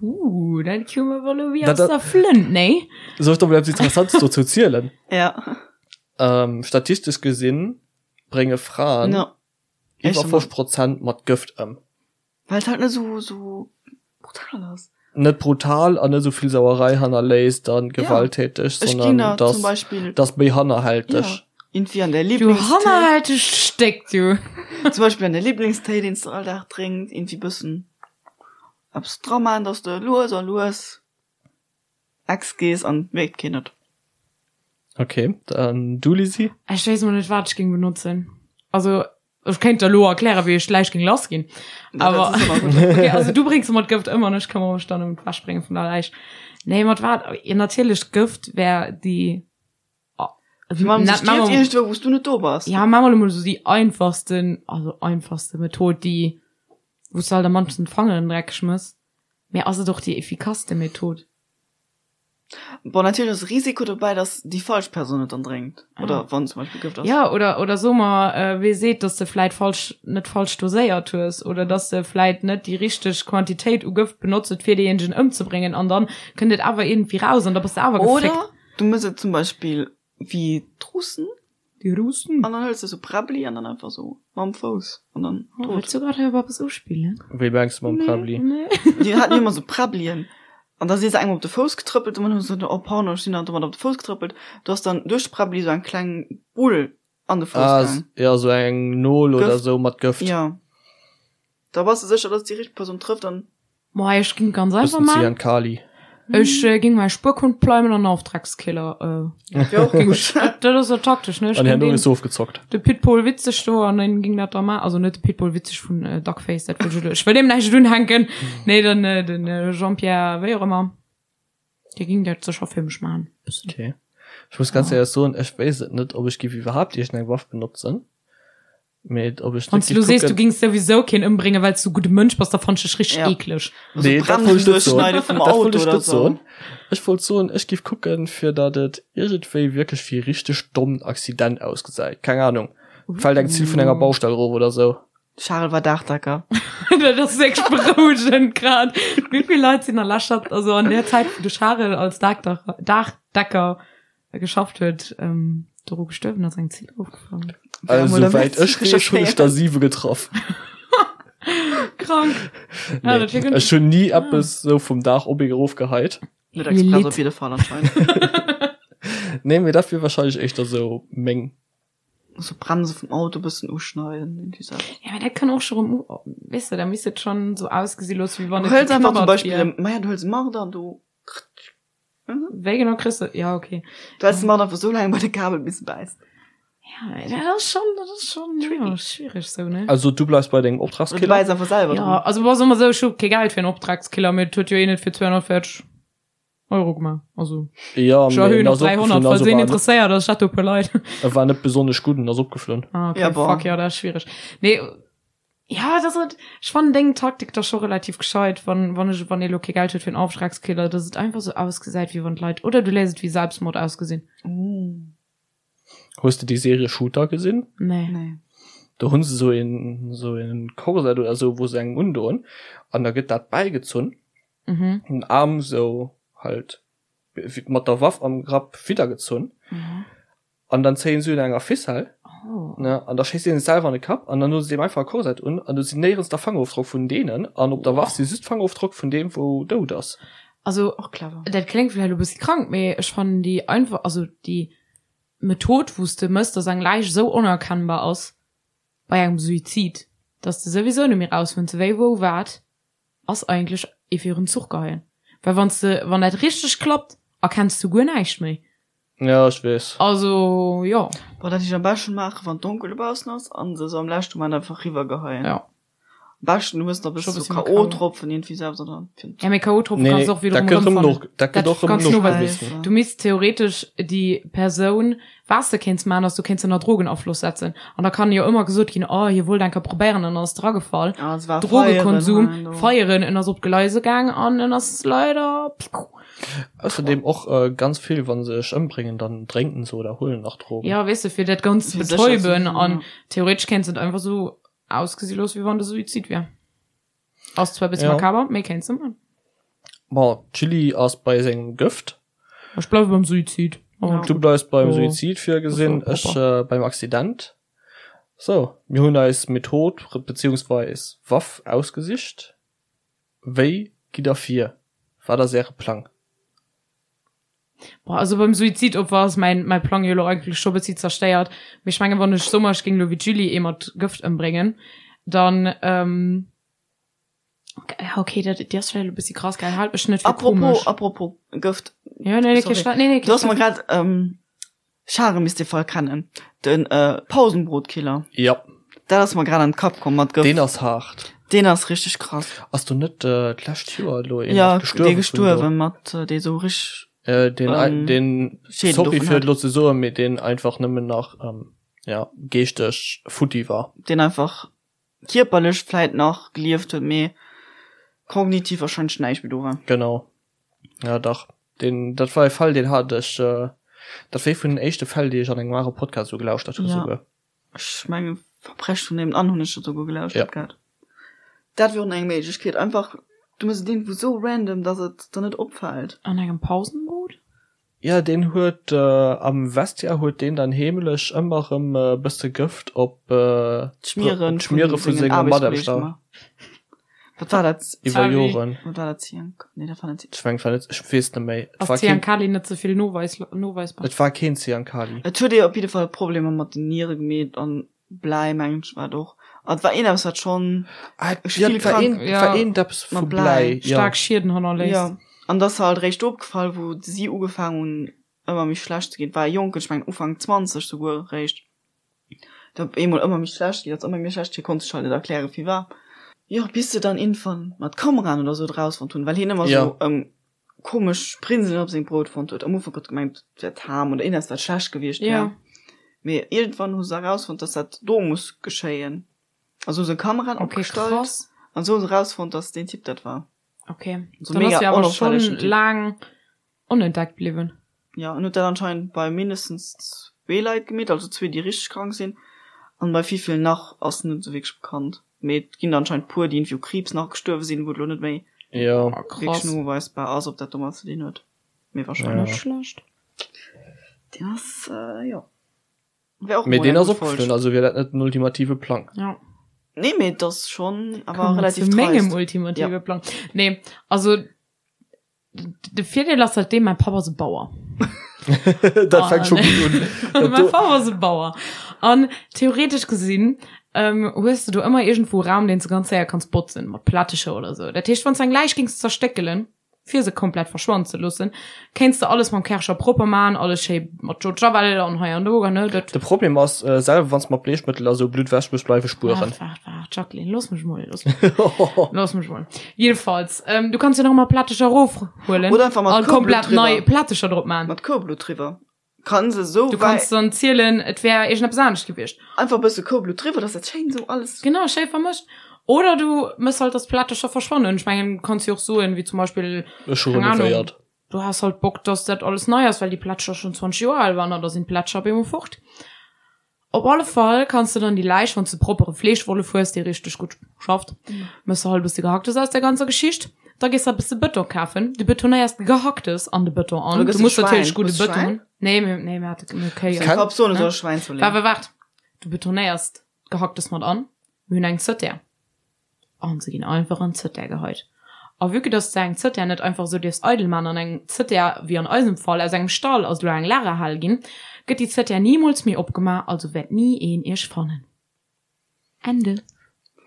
Uh, dat koum awer elo wéi aus der Flënt, nee? Soll ech der mol eppes Interessantes dozou zielen? Ja. Ähm, statistesch gesinn brénge Fraen No. iwwer 50 Prozent mat Gëft ëm. Well et halt net esou, esou brutal ass. Net brutal an net esou vill Sauerei hannerléisst an gewalttäteg, Ech ginn sondern der dass, zum Beispill, dass méi hannerhälteg. ja, irgendwie an der Du Lieblingstéi, hannerhältegt Stéck, du. zum Beispill an der Lieblingstéi, deen s de all Dag drénks, irgendwie bëssen eppes dra man, dass de lues a lues ex gees an et mierkt keen et. Okay, dann du Lisi? Ech weess mol net wat ech géing benotzen. Also ech kéint der lo erklären wéi ech d'Läich géing lass ginn. Awer okay, also du bréngs ëmmer d'Gëft ëm an ech këmmere mech dann ëm d'Wechbrénge vun der Läich. Nee mat wat? Jo natierlech d'Gëft wär déi Wann se stierft iergendwou wou s du net do bass. Ja maa mer lo mol esou déi einfachsten, also einfachste Method déi wou s de halt am mannsten d'Fangeren dreckeg mëss. Mee ass et och déi effikasste Method? Bon, natierlech ass e Risiko dobäi, dass déi falsch Persoun et dann drénkt. Oder wann zum Beispill Gëft ass. Ja, oder, oder so mer, wee seet, dass de vläit falsch, net falsch doséiert hues oder dass de vläit net déi richteg Quantitéit u Gëft benotzt huet, fir deejéinegen ëmzebréngen an dann kënnt et awer iergendwéi raus an da bass de awer gefléckt. Oder du mëss et zum Beispill wéi d'Russen. Déi Russen? An dann hëls de sou Präbbli an dann einfach sou mam Fouss an dann tot. Wëlls du grad hei op eppes uspillen? Wéi mengs de mam Präbbli? Nee. Déi haten jo ëmmer sou Präbblien an da si se engem op de Fouss getrëppelt an dann hu se gesot, oh pardon, ech sinn der domat op de Fouss getrëppelt. Do ass dann duerch d'Präbbli sou eng kleng Bull an de Fouss Ah, gaang. ja, sou eng Nol oder Gëft. sou mat Gëft. Ja. Da bass de sécher, dass déi richteg Persoun trëfft an. Moi, ech ging ganz einfach Bëssen man. Zyankali. Ech äh, ging mei Spuerkhund pleimen an Auftragskiller. Äh, Wär och ging gutt. ech, dat, dat ass jo taktesch, ne? Ech An ging herno den, is ofgezockt. de Pitbull witzeg do an den ging dat da ma, also net de Pitbull witzeg vun äh, Duckface, dat wëll ech elo, ech wëll deem näischt unhänken. Nee, den, äh, den äh, Jean-Pierre, wéi och ëmmer, dee ging dat sécher fir mech man. Bëssen. Okay. Ech muss ganz éierlech soen, ech wéisst et net, ob ech giff iwwerhaapt iergendeng Waff benotzen. Mee ob ech Wann du lo sees, du gings souwisou keen ëmbréngen, well s du e gudde Mënsch bass, da fannen ech dech richteg Ja. eekleg. Nee, dat wollt ech net soen. Bremsen vum Dat wollt Auto ech oder net sou. soen. Ech wollt soen, ech giff kucken, fir datt et iergendwéi wierklech wéi e richteg dommen Accident ausgesäit. Keng Ahnung, fält eng Zill vun enger Baustell erof oder sou. Charel war Daachdecker. Dat ass wierklech berouegend grad. Wéi vill Leit sinn a leschter, also an där Zäit, wou de Charel als Daachdecker geschafft huet, ähm, doru gestuerwen ass, eng Zill erofgefall. Also souwäit ech weess, hunn ech der 7 getraff. Krank. Ja, Nee, dat wär ech hunn ni eppes sou vum Daach op ee erofgeheit. Net express op jidde Fall anscheinend. Nee, mee dat wier wahrscheinlech éischter sou meng. So Bremse vum Auto bëssen uschneiden, irgendwie sou. Ja, mee dat kann och scho rëm, weess de, da misst et schonn sou ausgesi loossen, wéi wann Du et hëls einfach zum geknabbert Beispill, wier. maja, du hëls e Marder an du. Wéi genau kriss de, ja okay. Du häls de Marder einfach sou laang bei de Kabel bis e bäisst. Ja, dat ass schon, dat ass schon ja, schwierig sou, ne? Also du bleifs bei dengem Oder du Optragskiller? bäiss einfach selwer Ja, dran. also war soll mer sou, ech hu kee Geld fir en Optragskiller, mee et huet jo een et fir 240 Euro gemaach. Also Ja, ech mee erhöhen en op ass 300, opgeflunn, falls also een war net, interesséiert ass, ech hätt do e puer Leit. e war net besonnesch gutt, en ass opgeflunn. Ah, okay, Ja, bon. fuck, ja, dat ass schwierig. Nee, Ja, dat ass et. Ech fannen deng Taktik da scho relativ gescheit, wann, wann ech, wann ee lo kee Geld huet fir en Auftragskiller, dass et einfach sou ausgesäit, wéi wann d'Leit, oder du léiss et wéi Selbstmord ausgesinn. Hues de déi Serie Shooter gesinn? Nee. Nee. Do hunn se sou een, sou een Korsett oder sou, wou se engem undoen an da gëtt dat bäigezunn, Mhm. den Aarm sou halt mat der Waff am Grapp widdergezunn. Mhm. An dann zéien se un enger Ficelle, Oh. ne, an da schéisst een sech selwer an de Kapp an dann hu se deem einfach e Korsett un an do sinn néierens der Fangerofdrock vun deenen an op der Waff si just d'Fangerofdrock vun deem wou dout ass. Also, Och clever. dat kléngt vläicht elo e bëssi krank, mee ech fannen déi einfach, also déi Method, wou s de mëss, dass eng Läich esou onerkennbar ass bei engem Suizid, dass de souwisou net méi rausfënns, wéi, wou, wat, ass eigentlech ee virun Zuch geheien. Well wann s de, wann dat richteg klappt, erkenns du guer näischt méi. Ja, ech weess. Also, jo. Boah, dat ech am beschten maachen, wann donkel dobaussen ass an se sou am leschten Moment einfach riwwer geheien. Ja. Am beschten du hues nach e Scho bësse bëssi sou méi K.O. K.O.-Tropfen iergendwéi selwer dran. Fir Ja, mee K.O.-Tropfen Nee, kanns du och dat wiederum gëtt rëm erëmfannen. no, dat gëtt Dat och rëm kanns du noweisen. nogewisen. Du misst theoretesch déi Persoun, was de kéints maachen, ass du kéints ënner Drogenafloss setzen. An da kann jo ëmmer gesot ginn, oh, hie wollt eng Kéier probéieren an ass dragefall. Ah, es war Drogekonsum, feieren, do. feieren, en ass op d'Gleise gaang an en ass leider. Ausserdem och ganz vill, wa se sech ëmbréngen, dann drénken se oder huelen nach Drogen. Ja, weess de, fir dat Ganzt ze Fir sécher ze betäuben sinn, an ja. theoretesch kéints et einfach sou ausgesi loossen, wéi wann de Suizid wier. Ass zwar e bëssi Ja. makaber, mee kéints de man. Bon, d'Julie ass bei sengem Gëft. Ech bleiwe beim Suizid. Ja. Du bleifs beim Jo. Suizid virgesinn, Das war ech äh, beim Accident. So, mir hunn eis Method beziehungsweis Waff ausgesicht. Wéi gitt der vir? Wat ass äre Plang? Boah, also beim Suizidopfer ass mäin, mäi Plang jo elo eigentlech scho bëssi zerstéiert. Mee ech mengen, wann ech soe mer, ech géing elo wéi d'Julie ee mat Gëft ëmbréngen, dann, ähm, ja okay, dat, déi ass vläicht elo bëssi krass, gell, haalt mech net fir Apropos, komesch. apropos Gëft. Ja, nee, nee, kee Sorry. Stress, nee, nee, kee Du hast mer Stress. grad, ähm, Schare misst dee Fall kennen. Den äh, Pausenbrotkiller. Ja. Dat ass mer grad an den Kapp komm mat Gëft. Deen ass haart. Deen ass richteg krass. Ass do net äh, d'lescht Joer elo een Ja, nach gestuerwen dee gestuerwen mat äh, dee sou richteg Äh, deen, ähm, deen, Schäden sorry dovun fir hat. et lo ze soen, mee deen einfach nëmmen nach ähm, ja, geeschteg futti war. Deen einfach kierperlech vläit nach gelieft huet, mee kognitiv warscheinlech näischt méi do war. Genau. Ja, dach. Deen, dat war e Fall, deen hat ech, äh, dat war ee vun den éischte Fäll, déi ech an engem anere Podcast esou gelauschtert hu Ja. souguer. Ech mengen, Verbrechen vun nebenan hunn ech dat souguer gelauschtert Ja. gehat. Dat wier och nach eng Méiglechkeet, einfach, du méchs et iergendwou sou random, dass et der net opfält. An engem Pausenbrot? Ja, deen huet am Vestiaire huet deen dann heemlech ëmmer erëm e bësse Gëft op d'Schmiere d'Schmiere vu senge Mataarbechter. Wat war dat? Iwwer Joren. Wat war dat? Zyankali? Nee, dat war net. Ech mengen, et war net, ech weess net méi. Et Ass war keen, Zyankali net ze vill noweis, noweisbar? et war keen Zyankali. Et huet ee op jidde Fall Problemer mat den Niere gemeet an Bläi mengen ech war et och. An et war een eppes wat schonn Ah, Ech ja, vill et war krank. een, et war Ja. een eppes vu Mat Bläi, Bläi. ja. Staark Schieden hannerléisst. Ja, an et ass halt eréischt opgefall wou si ugefaang hunn ëmmer méi schlecht ze ginn. Et war e Jonken, ech mengen Ufank 20 souguer eréischt, der op eemol ëmmer méi schlecht ginn ass, ëmmer méi schlecht. Hie konnt sech halt net erklären firwat. Jo, bis se dann iergendwann mat Kameraen oder sou et erausfonnt hunn, well hien ëmmer Ja. sou komesch Prinselen op sengem Brout fonnt huet. Am Ufank huet gemengt, et wär d'Ham oder iergendeppes wat schlecht gewiescht wär. Ja. Mee iergendwann hu se erausfonnt, dass dat do muss geschéien. Also hu se Kameraen Okay, opgestallt krass. an sou hu se erausfonnt, dass deen Typ dat war. Okay. So Dann mega ass jo awer onauffällegen schonn Typ. laang onentdeckt bliwwen. Ja, en huet dat anscheinend bei mindestens zwee Leit gemeet, also zwee, déi richteg krank sinn. An bei wéivill nach ass net esou wierklech bekannt. Mee et ginn der anscheinend puer, déi iergendwéi u Kriibs nach gestuerwe sinn, wou et elo net méi Jo. Oh, wierklech krass. noweisbar ass, ob dat domat ze dinn huet. Mee wahrscheinlech. Net schlecht. Deen ass, jo. Wär och Mee mol deen eng ass gutt Folg. opgeflunn, also wier dat net den ultimative Plang. Ja. Nee, mee et ass schonn awer Kommen wir relativ zu mengem dreist. ultimative Ja. Plang. Nee, also De Virdeel ass halt deen, mäi Papp ass e Bauer. Dat fänkt scho gutt un. Dat Mäi do. Papp ass e Bauer. An theoretesch gesinn hues de do ëmmer iergendwou e Raum, deen s de ganz séier kanns botzen, mat Plättecher oder sou. Dat heescht, wann s de eng Läich géings zerstéckelen, fir se komplett verschwannen ze loossen, kéints de alles mam Kärcher propper man, alles schéi mat Eau de Javel an hei an do, ne, dat. De Problem ass, selwer wann s de mat Bleechmëttel a sou Blutt wäsch muss, bleiwe Spueren. Waart, waart, waart, Jacqueline, looss mech mol, looss mech, looss mech mol. Jedenfalls, ähm, du kanns jo nach emmer Plättecher rofhuelen Oder einfach mat an Koublutt komplett driwwer. nei Plättecher drop man. Mat Koublutt driwwer. Kann se sou Du kanns dann zielen, et wär iergendeppes anescht gewiescht. Einfach e bësse Koublutt driwwer, dass dat schéin sou alles. Genau, schéi vermëscht. Oder du mëss halt, dass d'Plättecher verschwannen. Ech mengen, du kanns jo och soen, wéi zum Beispill, Ech hu keng Ahnung, renovéiert. du has halt Bock, dass dat alles nei ass, well déi Plättecher schonn 20 Joer al waren an da sinn d'Plättecher op eemol fort. Op alle Fall kanns de dann déi Läich, wann s de proppere Fleeschwollef hues, dee richteg gutt schafft, mëss de halt e bësse Gehacktes aus där ganzer Geschicht. Da gees de e bësse Bëton kafen, du betonéiers d'Gehacktes an de Bëton an. Oder gëss Du de muss Schwäin? natierlech gudde Hues de Bëton Schwäin? hunn. Nee, mir, nee, mir hate mir hu Kéi. Seng Kenn- Papp soen, e Ne? soll Schwäin zouleeën. Waart, waart, waart. Du betonéiers d'Gehacktes mat an. Mir hunn eng Zëttär. An se ginn einfach an d'Zëttär geheit. A vue que dass de eng Zëttär net einfach esou dierfs eidel man an eng Zëttär, wéi an eisem Fall, aus engem Stall ass elo eng Lagerhal ginn, gëtt déi Zëttär nimools méi opgemaach, also wäert ni een iech fannen. Ende.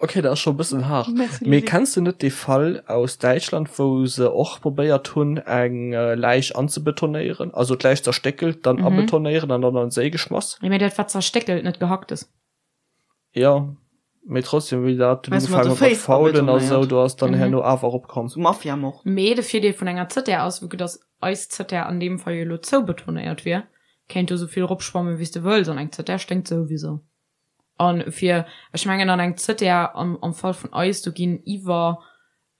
Ok, dat ass scho e bëssen haart. Merci, Mee Lydie. kenns de net dee Fall aus Däitschland, wou se och probéiert hunn, eng Läich anzebetonéieren? Also d'Läich zerstéckelt, dann abetonéieren an dann an den Séi geschmass? Jo, mee dat war zerstéckelt, net Gehacktes. Jo. Mee trotzdem, wéi dat Meinst du mat ugefaangen de huet mat Féiss faulen a sou, abetonéiert? do ass dann herno awer eropkomm. Sou Mafia-Mord. Mee de Virdeel vun enger Zëttär ass, vu que dass eis Zëttär an deem Fall jo elo zoubetonéiert wier, kéint do souvill eropschwammen, wéi s de wëlls, an eng Zëttär sténkt souwisou. An fir, ech mengen an eng Zëttär, am, am Fall vun eis, do ginn iwwer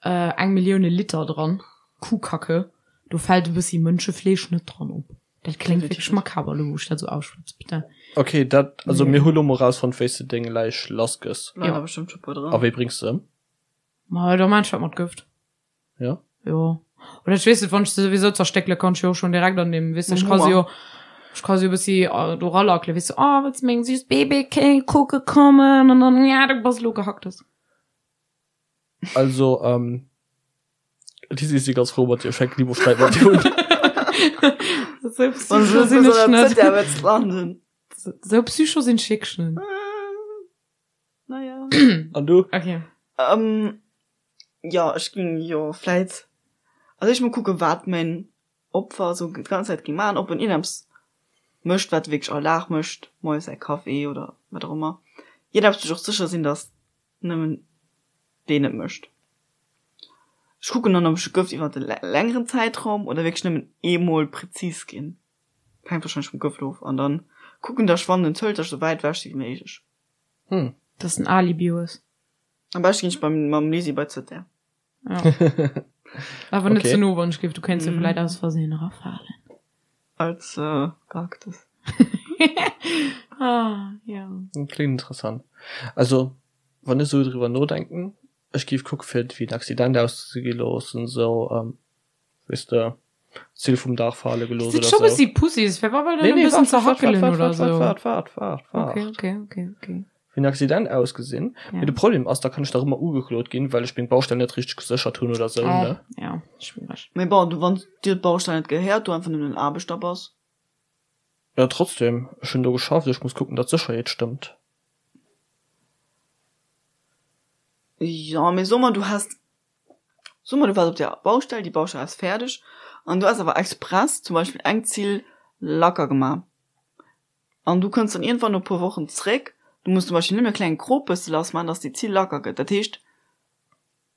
eng Millioune Liter dran, Kuhkacke, do fält e bëssi Mënschefleesch net dran op. Dat kléngt wierklech makaber elo, wou ech dat esou auschwätz, bitte. Ok, dat, also mir hu lo mol rausfonnt, wéi s de deng Läich lass gëss. Leien der bestëmmt scho puer dran. A wéi bréngs de se ëm? Ma da maan ech dat mat Gëft. Ja. Jo. Oder ech weess net, wann ech se souwisou zerstéckele kann ech jo och schonn direkt an deem, weess de, ech ka se jo, ech ka se jo e bëssi do ralackelen, weess de, oh, wëlls de meng süss Babykéng kucke kommen? An dann, ja, du bass elo Gehacktes. Also, ähm, Lisi, ech si ganz frou mat dir, ech fänken ni mol Sträit mat dir un. Sou psycho sinn ech net. Sou psycho sinn ech wierklech net. Naja. An du? Okay. Ähm, jo, ech ging jo vläit, also ech mol kucken, wat mäin Opfer sou d'ganz Zäit ging maachen, ob en iergendeppes mécht, wat e wierklech all Dag mécht, moies säi Café oder wat och ëmmer. Iergendeppes, wou ech och sécher sinn, dass nëmmen deen et mécht. Ech kucken dann, ob ech e Gëft iwwer e längeren Zäitraum oder wierklech nëmmen eemol prezis ginn. Hänkt wahrscheinlech vum Gëft of. An dann kucken, dass ech wann en zëlt, dass ech esou wäit ewech si wéi méiglech. Hm. Dass en Alibi hues. Am beschte ginn ech beim mam Lisi bei d'Zëttär. Ja. Awer net Okay. ze no, wann ech géif, du kéints jo vläit aus Versehen erafalen. Als äh, Gehacktes. Ah, ja. Klingt interessant. Also, wann ech sou driwwer nodenken, ech géif kucke fir et wéi en Accident auszegi loossen, sou, ähm, weess de, Zill vum Daach fale gelooss Sinn oder scho sou. bëssi Pussys, fir wa well Nee, dann e nee, bëssen waart, waart, waart, zerhackelen waart, oder waart, sou. waart, waart, waart, waart. Okay, okay, okay, okay. Wéi en Accident ausgesinn. Ja. Mee de Problem ass, da kann ech nach ëmmer ugeklot ginn, well ech meng Baustell net richteg geséchert hunn oder sou, Oh, ne? ja, schwiereg. Mee bon, du, wann dir d'Baustell net gehéiert, du einfach nëmmen en Aarbechter bass. Ja, trotzdem, ech hunn do geschafft, ech muss kucken, datt d'Sécherheet stëmmt. Jo, mee so mer, du häss, so mer, du waars op der Baustell, déi Baustell ass fäerdeg an du häss awer express zum Beispill eng Zill lacker gemaach. An du kënns dann iergendwann no e puer Wochen zréck, du muss zum Beispill nëmme e klenge Krop bësse lass maachen, dass déi Zill lacker gëtt. Dat heescht,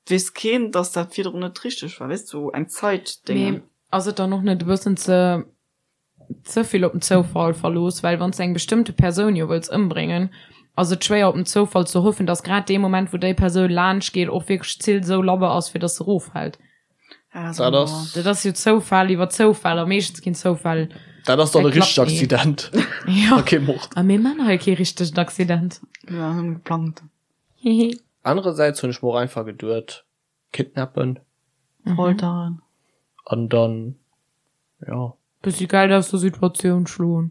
et weess keen, dass dat virdrun net richteg war, weess de, sou eng Zäitdéngen. Mee ass et dann och net e bëssen ze ze vill op den Zoufall verlooss? Well wann s de eng bestëmmte Persoun jo wëlls ëmbréngen, ass et schwéier op den Zoufall ze hoffen, dass grad dee Moment, wou déi Persoun laanscht geet, och wierklech d'Zill sou labber ass, fir dass se eroffält. Dat ass. Dat ass jo Zoufall iwwer Zoufall a meeschtens ginn Zoufäll. Dat ass dann e richtegt Accident. Ja. A kee Mord. A mir man hei kee richtegen Accident. Ja, nëmme geplangt. Hihi. Anerersäits hunn ech mer och einfach geduet, kidnappen. Folteren. An dann, ja. Bëssi Geld aus der Situatioun schloen.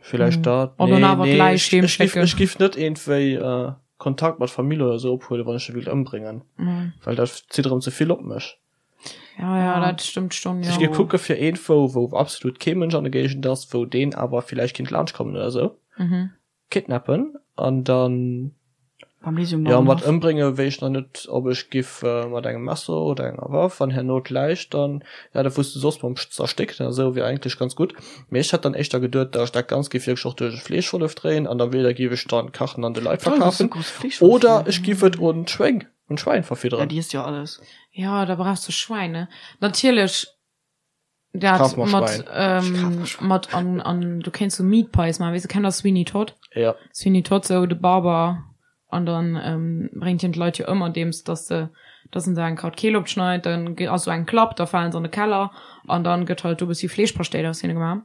Villäicht dat. An dann awer Nee, d'Läich ech, heem ech giff, schécken. ech giff net iergendwéi Kontakt mat Famill oder sou ophuelen, wann ech se wéilt ëmbréngen. Well dat zitt erëm ze vill op mech. Ja, ja, dat stëmmt schon, Ech jo. giff kucke fir iergendwou, wou absolut kee Mënsch an der Géigend ass, wou deen awer villäicht kinnt laanscht kommen oder sou. Kidnappen an dann Beim Lisi um ja mat Bauernhaff. ëmbrénge wéisst ech nach net ob ech giff mat engem Messer oder enger Waff an herno d'Läich dann ja dat wous de soss mam zerstécken a sou wier eigentlech ganz gutt mee ech hätt dann éischter geduet dat ech dat Ganzt giff wierklech och duerch e Fleeschwollef dréien an da weder giff ech dann kachen an de Leit Toll, dass du verkafen groß Fleeschwollef oder hier. ech giff et un d'Schwéng un d'Schwäin Ja, verfidderen. déi isst jo alles. Ja, da brauchs du Schwäin, ne? Natierlech Dat Kaf mer mat, Schwein. ähm, Ech kaf mer Schwein. mat an, an du kéints so Meat Pies maachen, weess du, kennt der Sweeney Todd? Ja. Sweeney Todd, sou de Barber, an dann ähm, bréngt hien d'Leit jo ëm andeems dass se, dass en se eng Kraut Keel opschneit, dann ge- ass sou eng Klapp, da falen se an de Keller an dann gëtt halt do bëssi Fleeschpaschtéit aus hinne gemaach.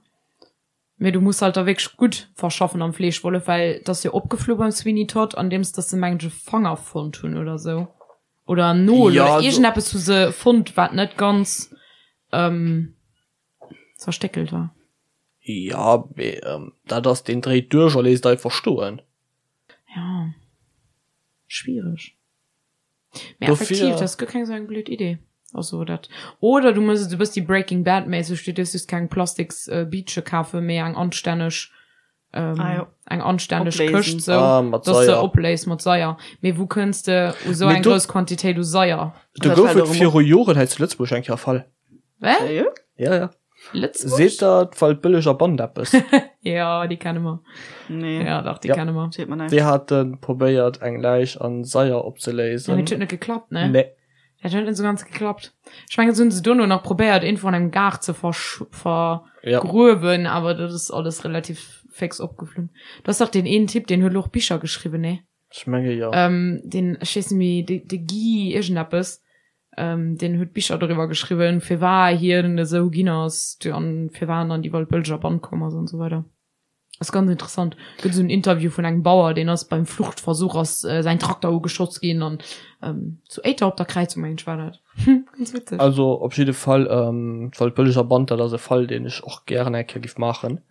Mee du muss halt da wierklech gutt verschaffen am Fleeschwollef, well et ass jo opgeflu beim Sweeney Todd, andeems dass se mengen ech e Fanger fonnt hunn oder sou. Oder en Nol Ja, oder also- iergendeppes hu se fonnt, wat net ganz ähm, zerstéckelt war. Ja, mee ähm, dat ass, deen dréit duerch a léisst einfach stoen. Ja. Schwiereg. Mee Dofir- effektiv, dat ass guer keng sou eng blöd Idee. Also dat. Oder du mëss et e bëssi Breaking Bad méisseg, du dierfs just keng plastiks äh, Biitche kafen, mee eng anstänneg ähm, Ah, jo. eng anstänneg Opléisen. Këscht sou, Ah, mat dass se Saier. opléist mat Saier. Mee wou kënns de u sou Mee eng do- grouss Quantitéit u Saier? Do Dat gouf fält et och ëm viru Joren hei zu Lëtzebuerg eng Kéier e Fall. Wä? Sérieux? Ja, ja. Lëtzebuerg? Seet der d'Waldbëlleger Band eppes? Jo, déi kenne mer. Nee. Ja, dach, déi Ja. kenne mer. Seet mer näischt. Déi hate probéiert eng Läich an Saier Ja, opzeléisen. mee et huet net geklappt, ne? Nee. Dat huet net sou ganz geklappt. Ech mengen, se hunn se dono nach probéiert, iergendwou an engem Gaart ze versch Ja. vergruewen, awer dat ass alles relativ féx opgeflunn. Do ass dach deen een Typ, deen huet elo och Bicher geschriwwen, ne? Ech menge jo. Ähm, deen, ech weess net méi, de, de Guy iergendeppes, ähm, deen huet Bicher doriwwer geschriwwen, firwar hien esou ginn ass an firwar en an déi Waldbëlleger Band komm ass an esou weider. Ass ganz interessant. Gëtt esou en Interview vun engem Bauer, deen ass beim Fluchtversuch ass säin Trakter ugeschoss ginn an ähm, zu Éiter op der Kräizung, mengen ech war dat. Ganz witzeg. Also op jidde Fall, ähm, d'Waldbëlleger Band, dat ass e Fall, deen ech och gären eng Kéier giff maachen.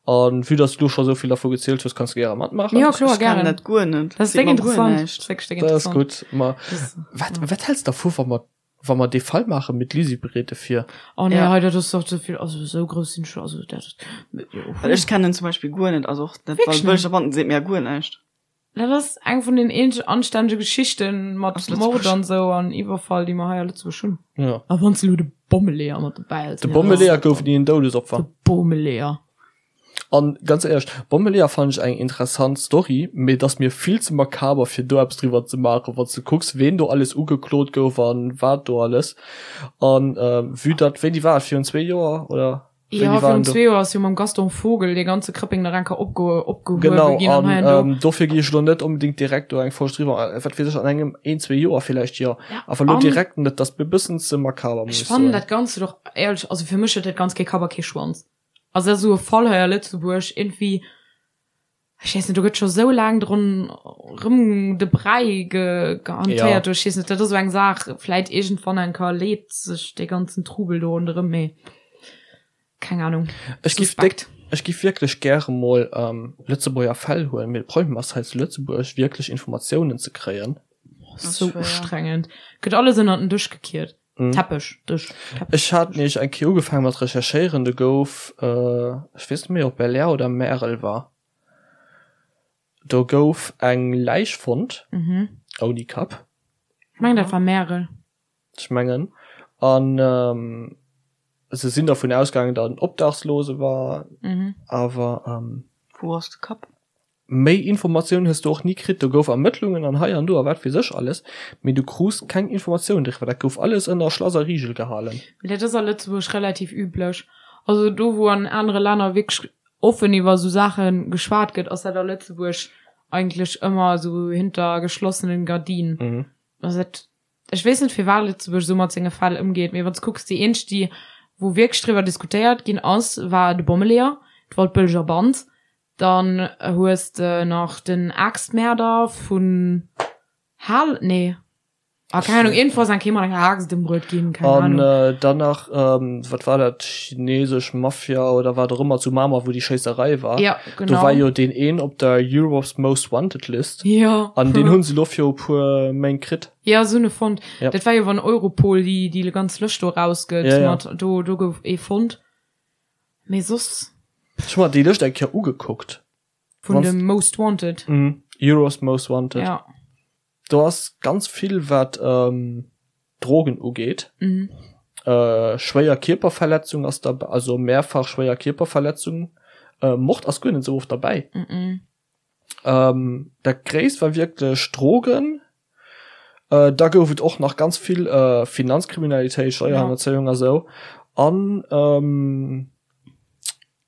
An vue dass du lo scho sou vill dervu gezielt hues, kanns du gäre matmaachen. Jo, kloer, Ech kennen gären. dat guer net. Dat ass Seet déck mer guer interessant. näischt. Dat ass wierklech déck Dat ass interessant. gutt. Ma Das, wat, ja. wat häls de dervu, wa mer, wa mer dee Fall maachen, mee d'Lisi bereet e vir? Oh nee, Ja. hei, dat ass doch ze vill. Also esou grouss sinn ech, also dat, jo. Well ech kennen zum Beispill guer net, also och dat Wierklech net? Waldbëlleger Banden seet mir guer näischt. Dat ass eng vun den eenzeg anstännege Geschichten mat Aus Lëtzebuerg. Mord an sou an Iwwerfall, déi mer hei a Lëtzebuerg hunn. Ja. A wann s de elo de Bommeleeër mat dobäi häls. De Bommeleeër gouf ni en Doudesopfer. De Bommeleeër. An ganz éierlech, Bommeleeër fannen ech eng interessant Story, mee et ass mir vill ze makaber fir do eppes driwwer ze maachen, wanns de kucks ween do alles ugeklot gouf an wat do alles. An vue datt, wéini war et, virun zwee Joer oder Jo, wéini war virun en do? zwee Joer ass jo mam Gaston Vogel dee ganze Krëppeng nach eng Kéier opge opgehuewe Genau, ginn an an hei an do. ähm, dofir gi ech elo net onbedéngt direkt do eng Folg driwwer, wat weess ech, an engem een, zwee Joer villäicht, jo, Ja, awer elo an direkt net, dat ass mir e bëssen ze makaber, muss ech ech fannen soen. dat Ganzt och éierlech, also fir mech huet dat Ganzt kee Kapp a kee Schwanz. Also dat ass esou e Fall hei a Lëtzebuerg, iergendwéi, ech weess net, do gëtt scho sou laang drun rëm de Bräi ge gehantéiert, ech weess net, dat ass esou eng Saach, vläit iergendwann eng Kéier leet sech dee ganzen Trubel do ronderëm, mee keng Ahnung, Ech giff suspekt. déck, ech giff wierklech gäre mol Lëtzebuerger Fäll huelen, mee de Problem ass hei zu Lëtzebuerg wierklech Informatiounen ze kréien. Sou ustrengend, gëtt alles ënnert den Dësch gekiert. Mhm. Teppech, Dësch, Teppech. Ech hat nämlech eng Kéier ugefaangen mat recherchéieren, do gouf, ech weess net méi ob Belair oder Märel war, do gouf eng Läich fonnt, Mhm. ouni Kapp. Ech mengen dat war Märel. Ech mengen. An se sinn dervun ausgaangen, datt en Obdachslose war, Mhm. awer. Wou ass de Kapp? Méi Informatioun hues du och ni kritt. Do gouf Ermëttlungen an hei an do a wat weess ech alles, mee du krus keng Informatioun driwwer. Dat gouf alles ënner Schlass a Rigel gehalen. Mee dat ass a Lëtzebuerg relativ üblech. Also do wou an anere Länner wierklech offen iwwer esou Saache geschwat gëtt, ass dat a Lëtzebuerg eigentlech ëmmer esou hinter geschlossenen Gardinen. Also dat, ech weess net firwat Lëtzebuerg esou mat senge Fäll ëmgeet, mee wann s kucks, déi eenzeg déi wou wierklech driwwer diskutéiert ginn ass, war de Bommeleeër, d'Waldbëlleger Band, Dann hues de nach den Aaxtmäerder vun Hal, nee, ah keng Ahnung, iergendwou ass eng Kéier mat enger Aaxt ëmbruet ginn, keng An Ahnung. dann nach, wat war dat, chinesesch Mafia oder wat och ëmmer zu Mamer, wou déi Schéisserei war. Ja, Do genau. war jo deen een op der Europe's Most Wanted List. Jo. An deen hu se elo viru puer Méint kritt. Ja, se hunn e fonnt. Ja. Dat war jo, wann Europol déi, déi ganz Lëscht do erausgëtt Ja, ja. mat, do, do gouf ee fonnt. Mee soss. Ech hu mer déi Lëscht eng Kéier ugekuckt. Vun dem Most Wanted. Mhm. Euro's Most Wanted. Ja. Do ass ganz vill wat ähm, Drogen ugeet. Mhm. Äh, schwéier Kierperverletzung ass dabei, also mehrfach schwéier Kierperverletzung. Äh, Mord ass guer net esou oft derbäi. Mhm. Ähm, dat gréisst war wierklech Drogen. Äh, da gouf et och nach ganz vill äh, Finanzkriminalitéit, Steierhannerzéiung a sou. An ähm,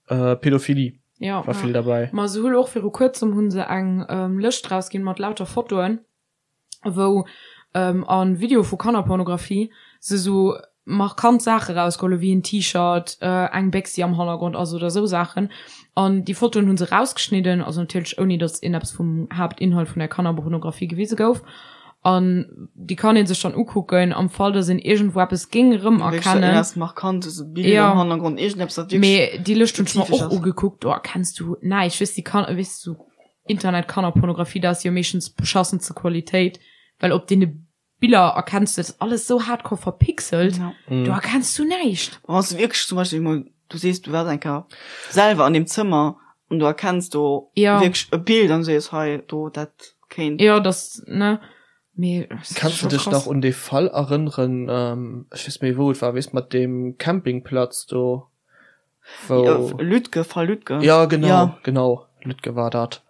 äh, Pädophilie Ja. war vill derbäi. Ma se hu och viru kuerzem hu se eng ähm, Lëscht rausginn mat lauter Fotoen. wou a Video vu Kannerpornografie se sou markant Saache rausgeholl hu wéi en T-Shirt, eng Béchs déi am Hannergrond ass oder sou Saachen. An déi Fotoen hu se rausgeschnidden, also natierlech ouni datt een eppes vum Haaptinhalt vun der Kannerpornografie gewise gouf. An déi kann ee sech dann ukucken am Fall datt een iergendwou eppes géing erëmerkennen. Jo, mee déi Lëscht hunn ech mer och ugekuckt, do erkenns du näischt, weess déi kann, weess du. Internet-Kannerpornografie, dat ass jo meeschtens beschassenste Qualitéit, well op deene Biller erkenns du, dat ass alles sou hardcore verpixelt, Ja. do erkenns du näischt. Wann s du wierklech zum Beispill emol, du sees, du waars eng Kéier selwer an deem Zëmmer an du erkenns do Ja. wierklech e Bild an du sees, hei, do, dat kéint. Jo, dass, ne, mee dat ass Kanns du scho dech krass. nach un dee Fall erënneren, ech weess net méi wou et war, weess mat deem Campingplatz do? Wou Ja, Lütge, Fall Lütge. Ja, genau, Ja. genau, Lütge war dat.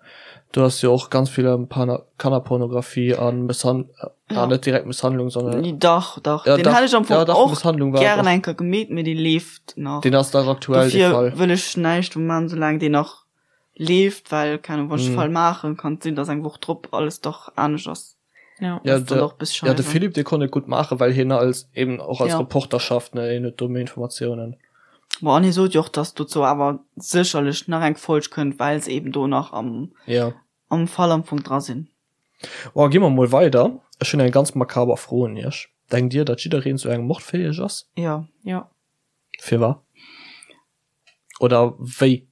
Do ass jo och ganz vill ëm Pana Kannerpornografie an Mësshan Ja. ah, net direkt Mësshandlung, sondern Nee, dach, dach. Ja, Den dach, hätt ech am Fong ja, dach, och Mësshandlung war et gären och. eng Kéier gemeet, mee dee leeft nach. Deen ass dach aktuell, dee Dofir Fall. wëll ech näischt do man, soulaang deen nach leeft, well, keng Ahnung, wann ech de Mhm. Fall maachen, kann et sinn, dass eng Woch drop alles dach anescht ass. Ja. Ja, Ass dann de, och bis ja, de scheiße. Philippe, dee konnt et gutt maachen, well hien als, eben och als Ja. Reporter schafft, ne, hien huet do méi Informatiounen. Bon, an hie sot jo och, dass dozou awer sécherlech nach eng Folg kënnt, well se eben do nach am, Ja. am Fall am Fong dra sinn. Bon, gi mer mol weider. Ech hunn eng ganz makaber Fro un iech. Denkt dir, datt jiddereen zu engem Mord fäeg ass? Ja. Ja. Firwat? Oder wéi?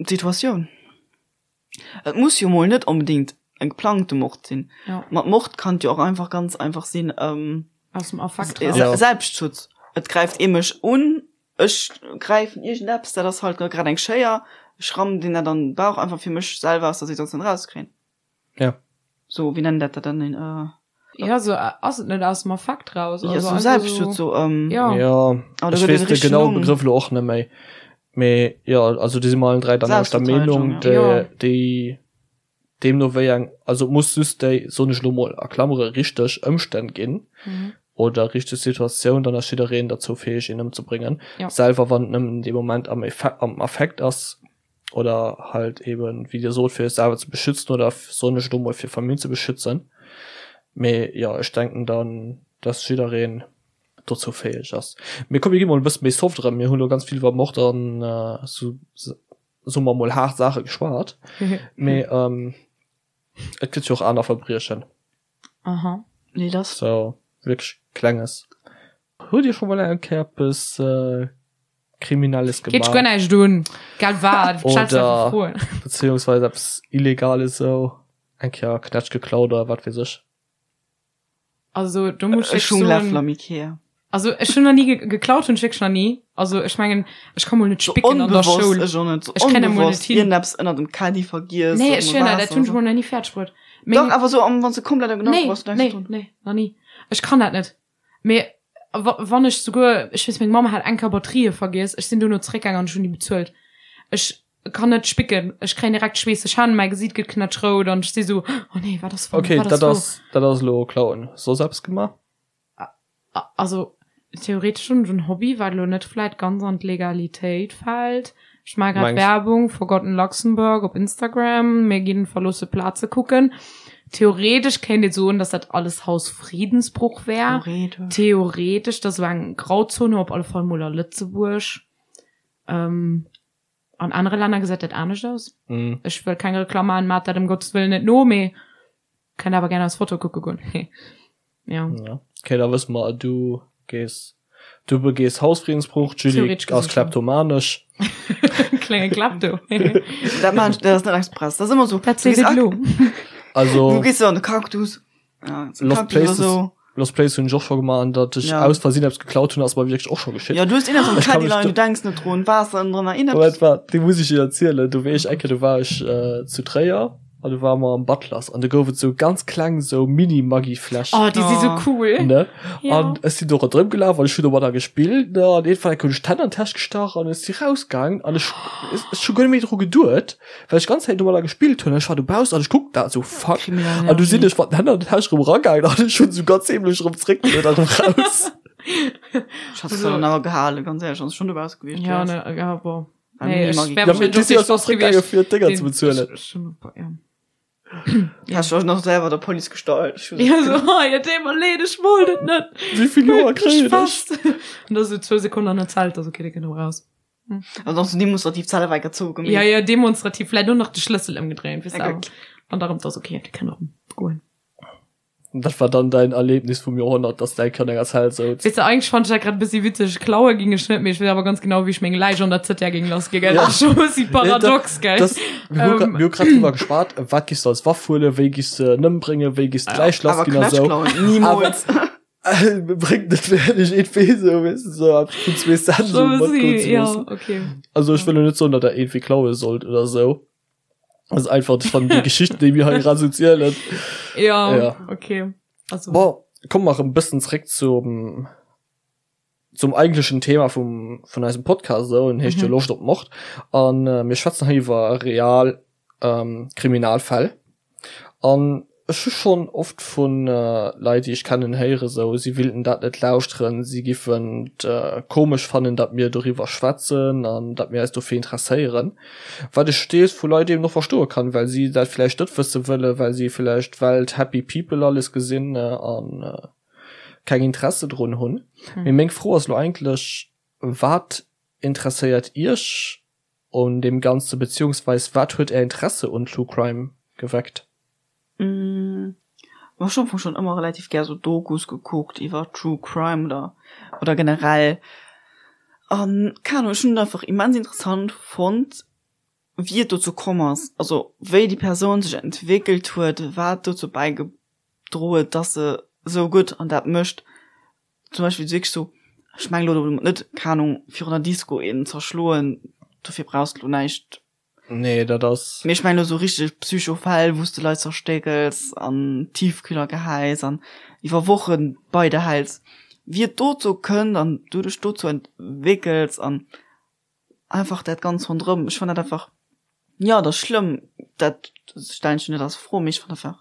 D'Situatioun. Et muss jo mol net onbedéngt e geplangte Mord sinn. Ja. Mat Mord kann et jo och einfach ganz einfach sinn, ähm, Aus dem Affekt Se raus. Ja. Selbstschutz. Et gräift ee mech un, ech gräifen iergendeppes, dat ass halt grad eng Schéier, ech rammen deen dat an den Bauch, einfach fir mech selwer aus der Situatioun erauszekréien. Ja. So, wéi nennen dat dat dann? Een, äh, Ja, so ass et net aus dem Affekt raus. ja, Also so einfach Selbstschutz, so, so, ähm, ja. Ja, Aber da ech gëtt weess et de richteg genaue Numm. Begrëff elo och net méi. Mee jo, also do si mer allen 3 der selwechter Selbstverteidigung, Meenung, ja. Ja. déi, déi deemno wéi eng, also et muss just déi, soen ech elo mol a Klammere, richteg Ëmstänn ginn Mhm. oder richteg Situatioun, dann ass jiddereen derzou fäeg een ëmzebréngen, Ja. selwer wann et nëmmen dee Moment am Effe am Affekt ass oder halt eben, wéi Dir sot, fir sech selwer ze beschützen oder, soen ech elo mol, fir Famill ze beschützen. Mee jo, ech denken dann, dass jiddereen dozou fäeg ass. Mee komm mir gi mol e bësse méi soft erëm, mir hunn elo ganz vill iwwer Mord an esou, soe mer mol, haart Saache geschwat. Mee et gëtt jo och aner Verbriechen. Aha. Nee, das. Sou wierklech Klenges. Hutt Dir scho mol eng Kéier eppes Kriminelles Geet dech guer gemaach? näischt un, gell wat? Stells du einfach Oder Froen. beziehungsweise eppes Illegales esou, eng Kéier Knätsch geklaut oder wat weess ech? Also do muss ech Ech hunn soen, Läffel am Ikea. also ech hunn nach ni ge geklaut hunn ech wierklech nach ni. Also ech mengen ech ka mol net So spicken an der onbewosst, Schoul. ech och net, so Ech kréien dat mol net onbewosst hin. iergendeppes ënnert dem Caddy vergiess Nee oder ech mol hunn dat, dat Waasser hunn ech oder mol nach ni fäerdeg bruet. sou. Meng Dach, awer so am wann s de komplett am Gedanken Nee, bass, du denkst nee, drun. nee, nach ni. Ech kann dat net. Mee wa wann ech souguer, ech weess meng Mamm hat eng Kéier Batterië vergiess, ech sinn dono zeréckgaang an ech hunn déi bezuelt. Ech kann net spicken, ech kréien direkt schweesseg Hänn, mäi Gesiit gëtt knätschrout an ech si sou, oh nee, wat ass wann, Okay, wat ass dat wou? ass, dat ass elo klauen. Soss eppes gemaach? Also theoretesch hunn ech en Hobby, wat elo net vläit ganz an d'Legalitéit fält. Ech maache grad Mengs. Werbung Forgotten Luxembourg op Instagram. Mir ginn verloosse Plaze kucken. Theoretesch kéint ee soen, dass dat alles Hausfriedensbruch wär. Theoretesch. Theoretesch, dat ass esou eng Grauzone, op alle Fall mol a Lëtzebuerg. An anere Länner gesäit dat anescht aus. Mm. Ech wëll keng Reklamm maachen, maacht dat ëm Gottes Wëllen net no, mee kënnt awer gär eis Foto kucke goen. Ja. Ja. Okay, da wësse mer, du gees, du begees Hausfriedensbruch, d'Julie Theoretesch ass gesinn schon. kleptomanesch. Klenge Klepto. Dat maan ech, dat ass net express. Dat ass ëmmer sou. Dat Du seet gees et ak- elo. Also Du gees sou an de Cactus. Ja, so Lost Cactus oder Places, so. Lost Place hunn ech och scho gemaach an datt ech Ja. aus Versinn eppes geklaut hunn, ass mer wierklech och scho geschitt. Ja, du hues een am Ech kann Caddy mech leien, do- du denks net drun, Waasser ënnendrënner, Moment, iergendeppes. waart, déi muss ech dir erzielen. Do war ech eng Kéier, do war ech äh, zu Tréier an do ware mer am Butlers an do gouf et sou ganz kleng sou Mini-Maggi-Fläschen. Oh, déi si sou Oh. cool. Ne? Ja. An ech sinn do ronderëm gelaf an ech hunn domadder gespillt, ne? An iergendwann eng Kéier hunn ech d'Hänn an d'Täsch gestach an ech si rausgaang an ech, ech, ech hu guer net méi dru geduet. Well ech ganz Zäit domadder gespillt hunn, ech war dobaussen an ech kucken dat esou, fuck. Kriminell An du sinn Energie. ech mat den Hänn an der Täsch erëm eragaangen an ech hunn esou ganz heemlech erëm zréckgeluet an erëm raus. Ech hat es dann awer gehalen, ganz éierlech, wann s schon dobausse gewiescht Ja, wärs. ne, ja, boah. Beim Nee, ech Mini-Maggi. wär Ja, mee wahrscheinlech du och si dee ass Spaß zréckgaange gewiescht, fir d'Dénger deen ze bezuelen. ech, ech hunn, ja. Hast du nach selwer der Police gestallt? Ech hunn Ja, so, oh, ja, deet mer leed, ech wollt et net. Wéi vill Joer kréien ech? Fest. An da sou zwou Sekonnen an der Zelt, also okay, dee kënnt erëm raus. Also och so demonstrativ Zelle wei gezogen Ja, ja, demonstrativ vläit och nach de Schlëssel ëmgedréint, weess de, Okay. awer. An da rëm, 't ass okay, déi kënnen erëm goen. Dat war dann däin Erlebnis vum Joerhonnert, dass däi Kand an enger Zell souz? Weess de, eigentlech fand ech dat grad e bëssi witzeg. Klaue ging ech net, mee ech weess awer ganz genau, wéi ech meng Läich an der ZR géing lass gi, gell. Ja. Dat ass scho e bëssi paradox, gell. Das, mir hu grad, Ähm. mir hu grad drüber geschwat, wat giss du als Waff huelen, wéi giss de en ëmbréngen, wéi giss d'Läich lass Awer ginn a sou. Knätsch klauen, niemals. Bréngt net wierklech irgendwie sou, weess de, sou eppes vun zwee Cent Scho sou e matgoen bëssi, ze ja, loossen. okay. Also ech wëll lo net soen, datt der irgendwie klaue sollt oder sou. Das ist einfach, ich fand die Geschichte, déi mir hei grad sou zielen. Ja, Ja. okay. Also, Bon, komme mer e bëssen zréck zum. Zum eigentlechen Thema vum, vun eisem Podcast, esou, en heescht jo Loscht op Mord. An mir schwätzen hei iwwer real Kriminalfäll. An ech hu schonn oft vu Leit, déi ech kennen, héiere sou, si willten dat net lauschteren, si giffen et komesch fannen, datt mir doriwwer schwätzen an datt mir eis dofir interesséieren. Wat ech deels vu Leit eben och verstoe kann, well si dat vläicht net wësse wëllen, well si vläicht d'Welt happy people alles gesinn a keng Interesse drun hunn. Mee meng Fro ass elo eigentlech, Wat interesséiert Iech un deem Ganze beziehungsweis wat huet Är Interesse un True Crime geweckt? Ech hunn am Fong schonn ëmmer relativ gär sou Dokus gekuckt iwwer True Crime oder oder generell an keng Ahnung, ech hunn et einfach immens interessant fonnt wéi et dozou komm ass, also wéi déi Persoun sech entwéckelt huet, wat dozou bäigedroe huet, dass se sou gutt an dat mécht. Zum Beispill wierklech sou, ech mengen elo domat net, keng Ahnung, virun der Disco een zerschloen, dofir brauchs de elo näischt. Nee, dat ass. Mee ech mengen elo sou richteg Psychofäll, wou s de Leit zerstéckels an Tiefkühler gehäis an iwwer Wochen bei der häls, wéi et dozou kënnt an du dech dozou entwéckels an einfach dat ganz ronderëm, ech fannen dat einfach, jo dat ass schlëmm, dat stellen ech net als Fro, mee ech fannen einfach.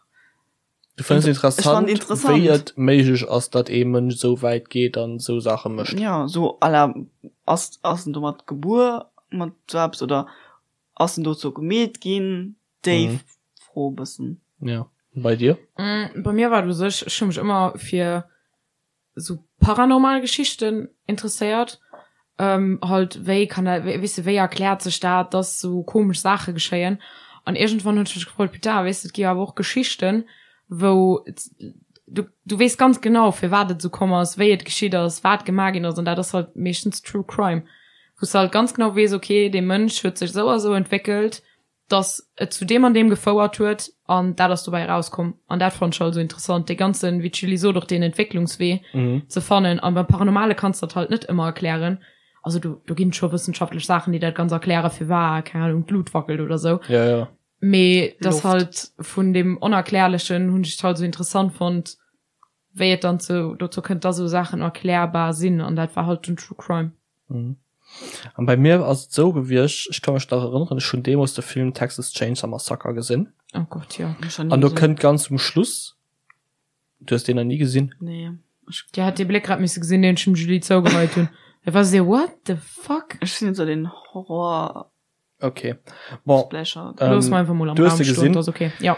Du fënns interessant, interessant wéi et méiglech ass, datt ee Mënsch esou wäit geet an esou Saache mécht. Jo, sou à la ass ass en domat gebuer mat sou eppes oder ass en dozou gemeet ginn, déi mhm. Fro e bëssen. Ja, bei dir? Mm, bei mir war et u sech, ech hu mech ëmmer fir sou paranormal Geschichten interesséiert. Ähm, halt wéi kann dat, weess de, wéi erkläert sech dat, dass sou komesch Saache geschéien? An iergendwann hunn ech mech gefrot, putain, weess de, et gi jo awer och Geschichten, wou du, du weess ganz genau, firwat et esou komm ass, wéi et geschitt ass, wat gemaach ginn ass, an dat ass halt meeschtens True Crime, wou s de halt ganz genau weess, okay, dee Mënsch huet sech esou a sou entwéckelt, dass et zu deem an deem gefouert huet an dat ass dobäi erauskomm an dat fand ech halt esou interessant, dee ganzen, wéi d'Julie sot, och deen Entwécklungswee ze fannen an beim Paranormale kanns de dat halt net ëmmer erklären, also do do ginn et scho wëssenschaftlech Saachen, déi dat ganz erklären, firwat, keng Ahnung, d'Lut wackelt oder sou, Ja, ja. mee dass halt vun deem Onerklärlechen hunn ech et halt esou interessant fonnt, wéi et dann zu dozou kënnt, dass esou Saachen erklärbar sinn an dat war halt den True Crime. Mhm. An bei mir ass et esou gewiescht, ech ka mech nach erënneren, ech hunn deemools de Film Texas Chainsaw Massacre gesinn. Oh Gott, jo. An do kënnt ganz um Schluss, du hues deen nach ni gesinn? Nee. Ech. Dir hätt dee Bléck grad misse gesinn, deen ech dem Julie zougeheit hunn. Et war esou, what the fuck? Ech sinn net esou den Horror. Okay. Bon, Splash-Art. Looss ähm, mer einfach mol am du hues Raum se stoen, gesinn. dat ass okay. Ja.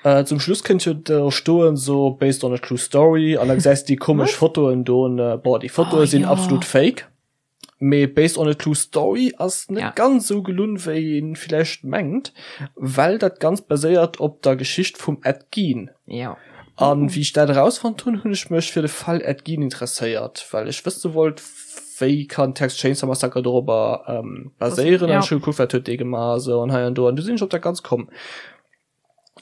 Äh, zum Schluss kënnt jo do stoen so based on a true story an da gesäis du déi komesch Fotoen do ne boah déi Fotoe Oh, sinn ja. absolut fake. Mee based on a true story ass net Ja. ganz sou gelunn wéi een villäicht mengt, well dat Ganzt baséiert op der Geschicht vum Ed Gein. Ja. An wéi ech dat erausfonnt hunn, hunn ech mech fir de Fall Ed Gein interesséiert, well ech wësse wollt, wéi kann Texas Chainsaw Massacre dorobber ähm, baséieren. An Ja. ech hu gekuckt, wat huet dee gemaach a sou an hei an do. An du sinn ech op dat Ganzt komm.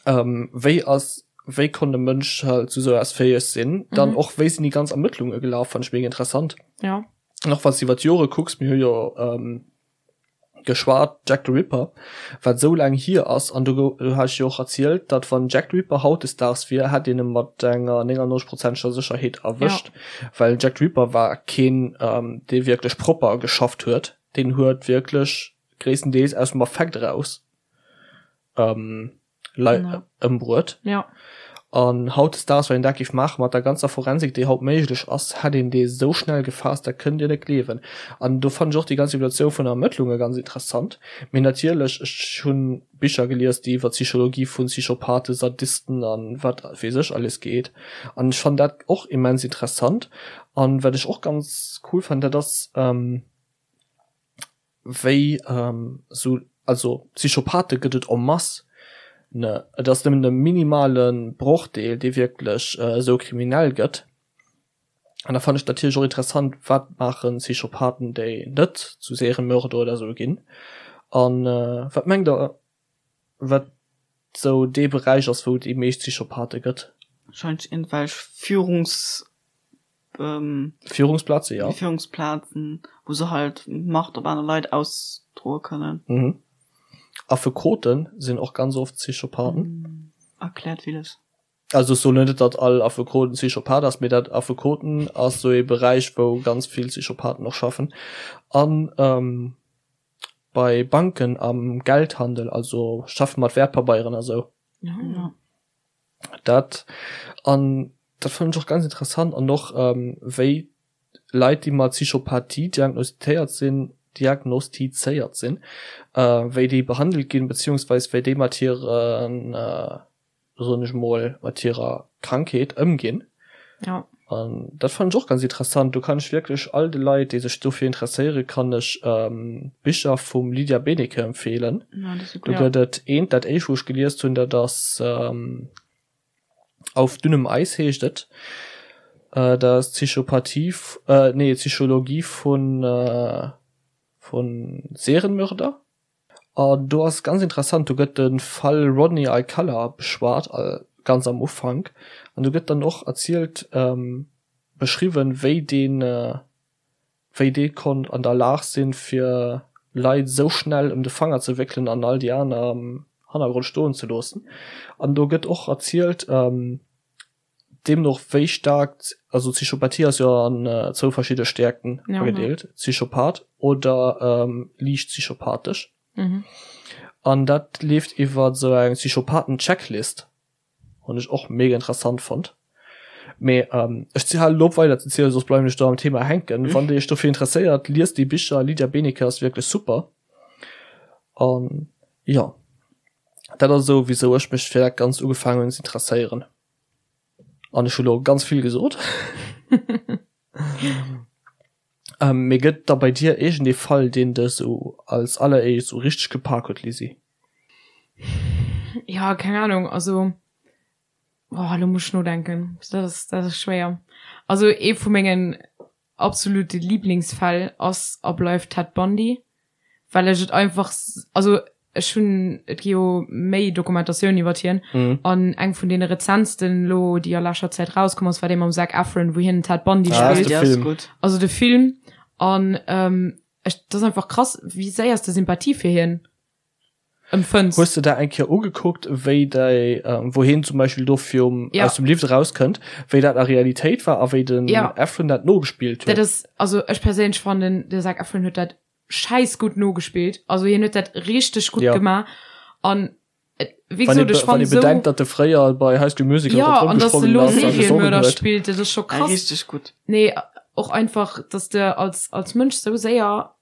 Ähm, wéi ass, wéi konnt e Mënsch halt zu sou eppes fäeg sinn? Dann Mhm. och, wéi sinn déi ganz Ermëttlunge gelaf, fand ech mega interessant. Ja. An och wann s du iwwer d'Jore kucks, mir hu jo ähm, geschwat Jack the Ripper, wat esou laang hier ass, an do do hat ech jo och erzielt, datt wann Jack the Ripper hautdesdaags wier, hätt een e mat enger 99 prozenteger Sécherheet erwëscht, well Jack the Ripper war keen, dee wierklech propper geschafft huet, deen huet wierklech gréisstendeels aus dem Affekt eraus Leit ëmbruet. Ja. An hautdesdaags, wann een dat géif maachen, mat der ganzer Forensik, déi haut méiglech ass, hätt een dee sou schnell gefaasst, dat kënnt Dir net gleewen. An do fannen ech och déi ganz Evoluatioun vun der Ermëttlunge ganz interessant. Mee natierlech, ech hu Bicher gelies, déi iwwer d'Psychologie vu Psychopathen, Sadisten a wat weess ech alles geet. An ech fannen dat och immens interessant. An wat ech och ganz cool fannen, dat ass, wéi sou, also Psychopathe gëtt et en masse, ne, et ass nëmmen e minimale Brochdeel, dee wierklech esou kriminell gëtt. An da fannen ech natierlech och interessant, wat maache Psychopathen, déi net zu Seriemörder oder esou ginn. An wat mengt der, wat sou dee Beräich ass, wou et déi meescht Psychopathe gëtt? Wahrscheinlech iergendwelch Führungs Führungsplaze, ja. Führungsplazen, wou se halt Macht op aner Leit ausdroe kënnen. Mhm. Affekoten sinn och ganz oft Psychopathen. Erkläert villes. Also ech soen net, datt all Affekoten Psychopath ass, mee dat Affekoten ass esou ee Beräich, wou ganz vill Psychopathen och schaffen. An bei Banken am Geldhandel, also schaffe mat Wäertpabeieren a sou. Ja. Dat an dat fannen ech och ganz interessant an och wéi Leit déi mat Psychopathie diagnostitéiert sinn, diagnostizéiert sinn, wéi déi behandelt ginn, beziehungsweis wéi déi mat hiren soen ech mol, mat hirer Krankheet ëmginn. Ja. An dat fannen ech och ganz interessant. Do kann ech wierklech all de Leit, déi sech dofir interesséieren, kann ech d'Bicher vum Lydia Benecke empfeelen. Ja, dat ass Do gëtt et eent, dat éischt wou ech geliest hunn, dat ass Auf dünnem Eis heescht et. Dat ass Psychopathie, nee Psychologie vun vu Serienmörder. An do ass ganz interessant, do gëtt de Fall Rodney Alcala beschwat, ganz am Ufank. An do gëtt dann och erzielt, beschriwwen, wéi deen, wéi dee konnt an der Lag sinn, fir Leit esou schnell ëm de Fanger ze wéckelen an all déi aner am Hannergrond stoen ze loossen. An do gëtt och erzielt, Deemno och wéi staark, also Psychopathie ass jo an zwou verschidde Stäerkten agedeelt, Psychopath oder liicht psychopathesch. An dat leeft iwwer esou eng Psychopathen-Checklist, hunn ech och mega interessant fonnt. Mee ech halen elo op weider ze zielen, soss bleiwen ech do am Thema hänken. Wann dir iech dofir interesséiert, liest déi Bicher, Lydia Benecke ass wierklech super. An jo. Dat ass esou wisou ech mech fir dat Ganzt ugefaangen hunn ze interesséieren. An ech hu lo ganz vill gesot. Ähm, mee gëtt da bei dir iergend ee Fall, deen dech esou als alleréischt esou richteg gepak huet, Lisi? Ja, keng Ahnung, also boah, lo muss ech nodenken. Dat ass, dat ass schwéier. Also ee vu mengen absolute Lieblingsfäll ass a bleift Ted Bundy. well ech et einfach also ech hunn et gi jo méi Dokumentatioun iwwert hien mm. an eng vun deene rezentsten lo déi a lescher Zäit rauskomm ass war dee mam Zac Efron wou hien den Ted Bundy ah, spillt de Film. also de Film an ähm, ech dat ass einfach krass wéi séier s de Sympathie fir hien empfënns. Hues de der eng Kéier ugekuckt wéi déi ähm, wou hien zum Beispill do virum ja. aus dem Lift erauskënnt, wéi dat a Realitéit war a wéi den ja. Efron dat nogespillt huet? Dat ass also ech perséinlech fannen de Zac Efron huet dat scheiss gutt nogespillt. Also hien huet dat richteg gutt Ja. gemaach an et, wéi Wann gesot, ee ech wann fann ee esou bedenkt, datt e fréier bei High School Musical ja ronderëm an dass de gesprongen lo ass a gesongen Serienmörder huet. spillt, dat ass scho Ja, krass. richteg gutt. Nee, och einfach, dass de als als Mënsch sou séier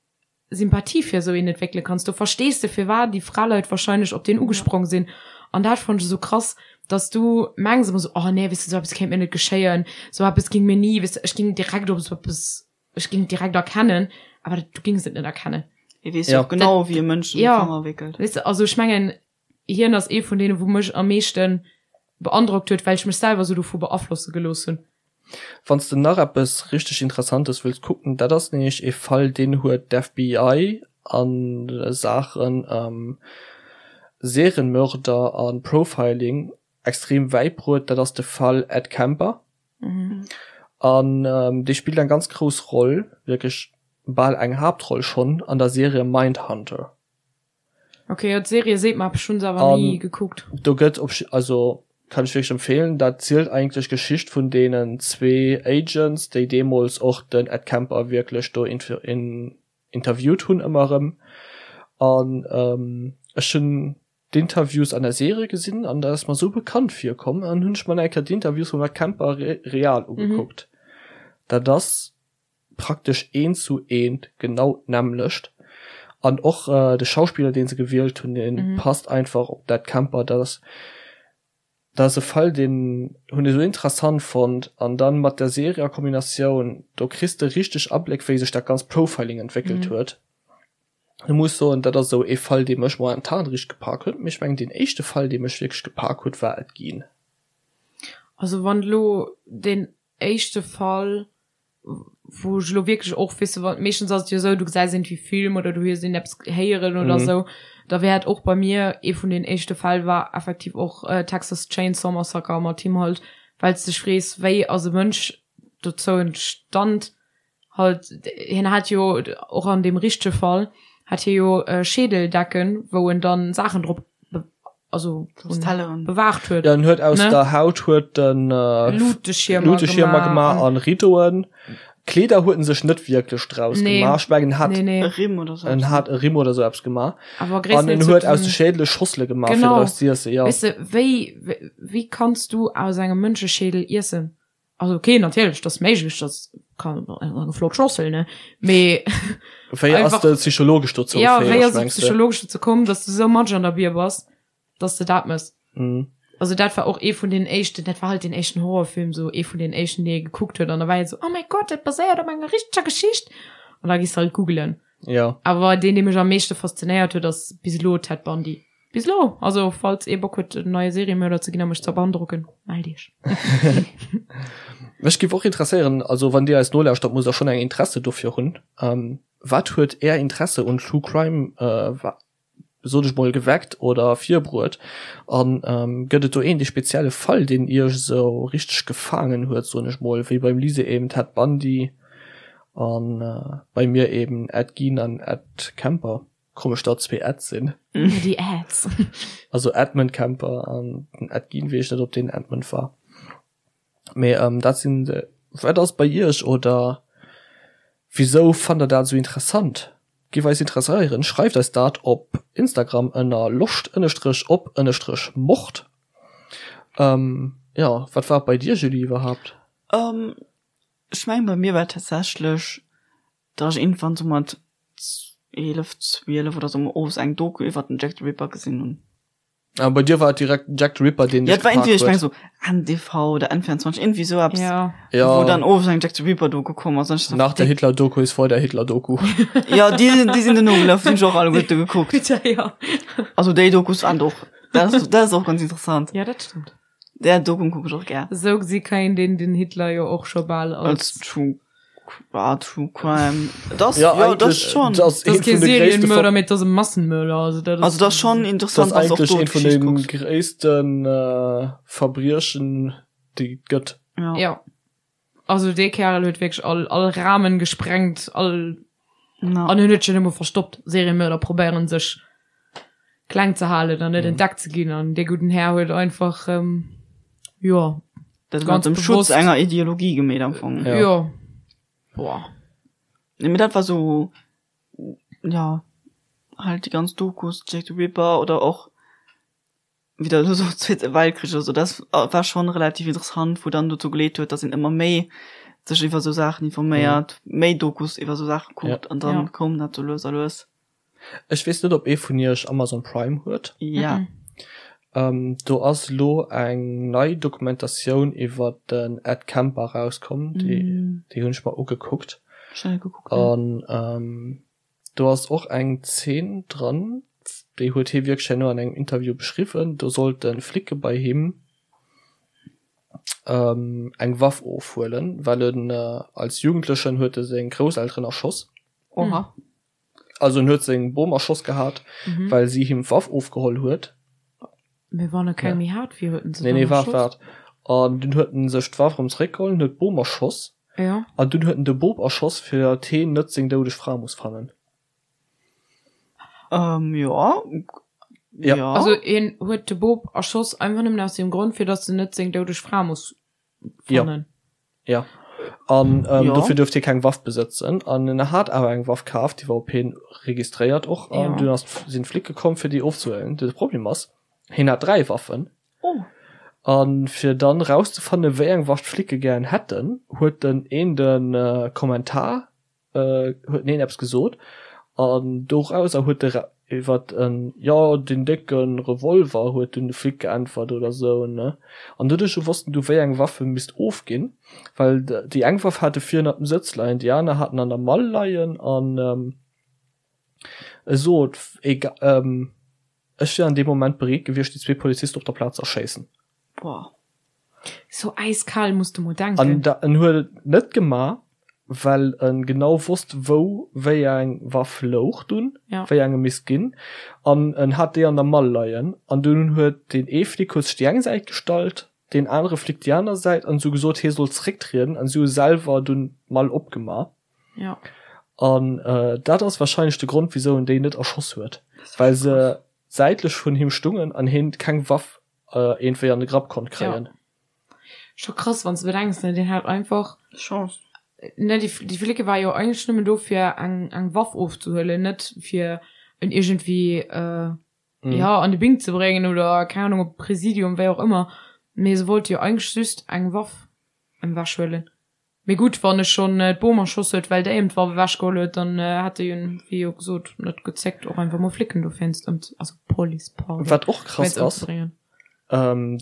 Sympathie fir esou een entwéckele kanns. Do verstees de firwat déi Fraleit wahrscheinlech op deen ugesprong sinn. An dat fannt ech esou krass, dass du mengs ëmmer esou, oh nee, weess de, esou eppes kéint mir net geschéien, esou eppes ging mir ni, weess de, ech ging direkt op esou eppes, ech ging direkt erkennen, awer du gings et net erkennen. Hie weess Ja. jo och genau, wéi e Mënsch ëm de Ja. Fanger wéckelt. Weess de, also ech mengen, hien ass ee vun deenen, wou mech am meeschten beandrockt huet, well ech mech selwer esou dovu beaflosse gelooss hunn. Wann s de nach eppes richteg Interessantes wëlls kucken, dat ass nämlech ee Fall, deen huet d'FBI a Saachen Serienmörder a Profiling extrem wäit bruet, dat ass de Fall Ed Kemper. An dee spillt eng ganz grouss Roll, wierklech bal eng Haaptroll schonn an der Serie Mindhunter. Ok, jo d'Serie seet mer eppes, ech hunn se awer ni gekuckt. Do gëtt op, also kann ech wierklech empfehlen, dat zielt eigentlech d'Geschicht vun deenen zwee Agents, déi deemools och den Ed Kemper wierklech do interviewt hunn ëmmer erëm. An ech hunn d'Interviews an der Serie gesinn an dat ass mer esou bekannt virkomm an hunn ech mer nach eng Kéier d'Interviews vum Ed Kemper real ugekuckt. Dat ass praktesch eent zu eent genau d'nämmlecht an och de Schauspiller deen se gewielt hunn deen passt einfach op d'Ed Kemper. Dat ass dat ass e Fall deen hunn ech esou interessant fonnt an dann mat der Serie a Kombinatioun do kriss de richteg Abléck wéi sech dat ganzt Profiling entwéckelt huet. Ech muss soen dat ass esou ee Fall dee mech momentan richteg gepak huet, mee ech mengen deen éischte Fall dee mech wierklech gepak huet war Ed Gein. Also wann elo deen éischte Fall wou ech elo wierklech och, weess de, wa meeschtens ass et jo esou, du gesäis iergendwéi Film oder du hues iergendeppes héieren oder mhm. esou, da wär et och bei mir ee vun den éischte Fäll war effektiv och äh, Texas Chainsaw Massacre mat him halt, well s dech frees, wéi ass e Mënsch dozou entstand halt, hien hat jo och an deem richtege Fall hat hie jo äh, Schädeldecken, wou en dann Saachen drop. Also bewaacht huet. Ja, en huet aus ne? der Haut huet den äh, Luteschirmer, Luteschirmer gemaach an Ridoen. Kleeder huet en sech net wierklech draus nee. gemaach. Ech mengen hat nee, nee. E Rimm oder so. En hat e Rimm oder so eppes gemaach. Aber an en huet aus de Schädele Schossele gemaach genau. fir draus ze iessen. Ja. Weißt du, wéi, wéi, wéi kanns du aus engem Mënscheschädel iessen? Also okay, natierlech, dat ass méiglech, dat kann eng flott Schossel, ne? Mee Wéi ass de psychologesch dozou ja, fäeg, wéi ass et mengs du? psychologesch dozou komm, dass du sou matsch an der Bier bass, dass de dat mëss? Mhm. Also dat war och ee vun den éischten, dat war halt den éischten Horrorfilm, sou ee vun den éischten, dee ee gekuckt huet an da war ee sou, oh mäi Gott, dat baséiert op enger richteger Geschicht an da gees de halt googelen. Ja. Awer deen, dee mech am meeschte faszinéiert huet, ass bis elo Ted Bundy. Bis elo! Also falls ee Bock huet en neie Seriemörder ze ginn a mech ze beandrocken, mellt iech. Mech giff och interesséieren, also wann dir eis nolauschtert, musst der schon eng Interesse dofir hunn, wat huet är Interesse un True Crime, sot ech mol, geweckt oder virbruet? An gëtt et do een dee spezielle Fall, deen iech esou richteg gefaangen huet, soen ech mol, wéi beim Lise eben Ted Bundy an bei mir eben Ed Gein an Ed Kemper? Komesch datt zwee Eds sinn. Déi Eds. Also Edmund Kemper an den Ed Gein, weess ech net ob deen Edmund war. Mee ähm, dat sinn de, wat ass bei iech oder wisou fannt der dat esou interessant? Giff eis interesséieren. Schreift eis dat op Instagram ënner loscht ënnestrech op ënnestrech mord. Ähm, jo, wat war et bei dir Julie iwwerhaapt? Ähm, ech mengen bei mir war et tatsächlech Datt ech iergendwann sou mat 11, 12 oder sou owes eng Doku iwwert den Jack the Ripper gesinn hunn. Ah, bei dir war et direkt den Jack the Ripper, deen Ja, dech et war gepaakt irgendwie, ech huet. meng sou NTV oder N24, irgendwie sou eppes, Ja. Ja. wou dann owes eng Jack the Ripper Doku komm ass. An ech sou, Nach der Hitler-Doku ist vor der Hitler-Doku. Ja, déi, déi sinn duerno gelaf, déi hunn ech och alleguerte gekuckt. Bitte, ja. Also déi Dokus waren och, dat ass, dat ass och ganz interessant. Ja, dat stëmmt. Där Doku kuck ech och gär. Esou gesi kann een den, den Hitler jo och scho bal als. Als True, ah, True Crime. Das, Ja, ja, das eigentlich, schon. das Das een ass kee vun de gréisste Serienmörder, Ver mee dat ass e Massenmörder. Also dat ass. Also dat ass schon das interessant, wann du och eigentlich do een vun d'Geschicht de kucks. gréissten äh, Verbriechen, déi et gëtt. Ja. Ja. Also dee Kerl huet wierklech all, all Rahmen gesprengt, all Na. an en huet sech net emol verstoppt. Serienmörder probéieren sech kleng ze halen an net entdeckt ze ginn an dee gudden Här huet einfach ähm, jo Dat ganz mat dem Schutz bewusst. enger Ideologie gemeet am Fong. Ja. Jo. Boah. Nee, mee dat war sou, ja, halt déi ganz Dokus, Jack the Ripper oder och wéi der elo sot, Zweete Weltkrich oder sou, dat war schonn relativ interessant, wou dann dozou geleet huet, datt een ëmmer méi sech iwwer sou Saachen informéiert, méi Dokus iwwer sou Saache kuckt an dann koum dat sou lues a lues. Ech weess net, ob ee vun iech Amazon Prime huet. Ja. Do ass elo eng nei Dokumentatioun iwwer den Ed Kemper erauskomm, déi déi hunn ech mer ugekuckt. Ech hunn net gekuckt, nee. An Do ass och eng Zeen dran, déi huet hie wierklech herno an engem Interview beschriwwen, do sollte Flicke bei him eng Waff ofhuelen, well en als Jugendlechen huet e seng Grousselteren erschoss. Oha. Also en huet seng Bom erschoss gehat, well si him d'Waff ofgeholl huet. Mee wann e keng méi hat, wéi huet en se Nee, dann nee, waart, erschoss? waart. An dunn huet en sech d'Waff erëm zeréckgeholl, huet d'Bom erschoss. Ja. An dunn huet en de Bop erschoss, fir datt heen net seng doudeg Fra muss fannen. Ähm, jo. Ja. Jo. Also hien huet de Bop erschoss einfach nëmmen aus dem Grond, fir datt en net seng doudeg Fra muss fannen. Ja. An ähm, Jo. dofir duerft hie keng Waff besëtzen. An en hat awer eng Waff kaf, déi war op hien registréiert och. An Ja. dunn ass sinn d'Flicke komm, fir déi ofzehuelen. De Problem ass, hien hat 3 Waffen. Oh. An fir dann rauszefannen, wéi eng Waff d'Flicke gären hätten, huet den een de Kommentar, huet den een eppes gesot, an dorauser huet de iwwert en, jo, deen décke Revolver, huet dunn de Flic geäntwert oder sou, ne. An doduerch wossten du, wéi eng Waff e misst ofginn, well déi eng Waff hat e vir ënnert dem Sëtz leien, déi aner hat en an der Mall leien, an e sot, ega, Ech wier an deem Moment bereet gewiescht, déi zwee Polizisten op der Plaz ze erschéissen. Boah. Sou äiskal muss de mol denken. An da, en huet et net gemaach, well e genau wosst, wou wéi eng Waff louch dunn, Ja. wéi eng e misst ginn. An en hat déi an der Mall leien. An dunn huet deen ee Flic huet sech déi eng Säit gestallt, deen anere Flic déi aner Säit an se hu gesot, hie soll zrécktrieden. An si hu selwer dunn d'Mall opgemaach. Ja. An äh, dat ass wahrscheinlech de Grond, wisou en déi net erschoss huet. Well se. säitlech vun him stungen an heen keng Waff iergendwéi an de Grapp konnt kréien. Scho krass wann s de bedenks, ne, deen hat einfach Chance. Ne, déi, déi Flicke war jo eigentlech nëmmen do fir eng, eng Waff ofzehuelen, net fir en iergendwéi, mm. ja, an de Bing ze bréngen oder keng Ahnung op Präsidium, wéi och ëmmer. Mee se wollte jo eigentlech just eng Waff ewech huelen. Mee gutt, wann e schonn d'Bom erschoss huet, well déi em d'Waff ewech geholl huet, dann hätt e jo, wéi jo gesot, net gezéckt och einfach mol Flicken dowéinst ëm, also Police, pardon, Wat och krass wéinst ass, ëmzebréngen.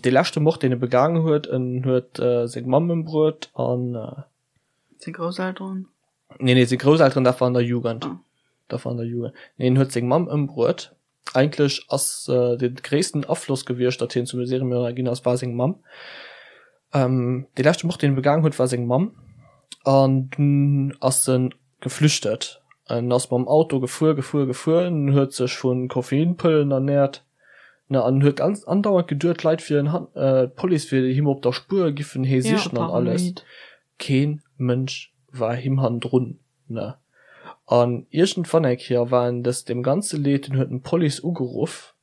dee leschte Mord, deen e begaangen huet, en huet seng Mamm ëmbruet an. Seng Grousselteren? Nee, nee, seng Grousselteren, dat war an der Jugend. Ah. Dat war an der Jugend. Nee, en huet seng Mamm ëmbruet. Eigentlech ass de gréissten Afloss gewiescht, datt hien zum Seriemörder ginn ass, war seng Mamm. Dee leschte Mord, deen e begaangen huet, war seng Mamm. An dunn ass e geflüchtet. En ass mam Auto gefuer, gefuer, gefuer, en huet sech vu Koffeinpëllen ernäert, ne, an huet ganz andauernd geduet, d'Leit wieren, d'Police wier him op der Spuer, giffen hee sichen an alles. Kee Mënsch war him hannendrun. Ne. An iergendwann eng Kéier war en des deem ganze Leed, en huet en d'Police ugeruff,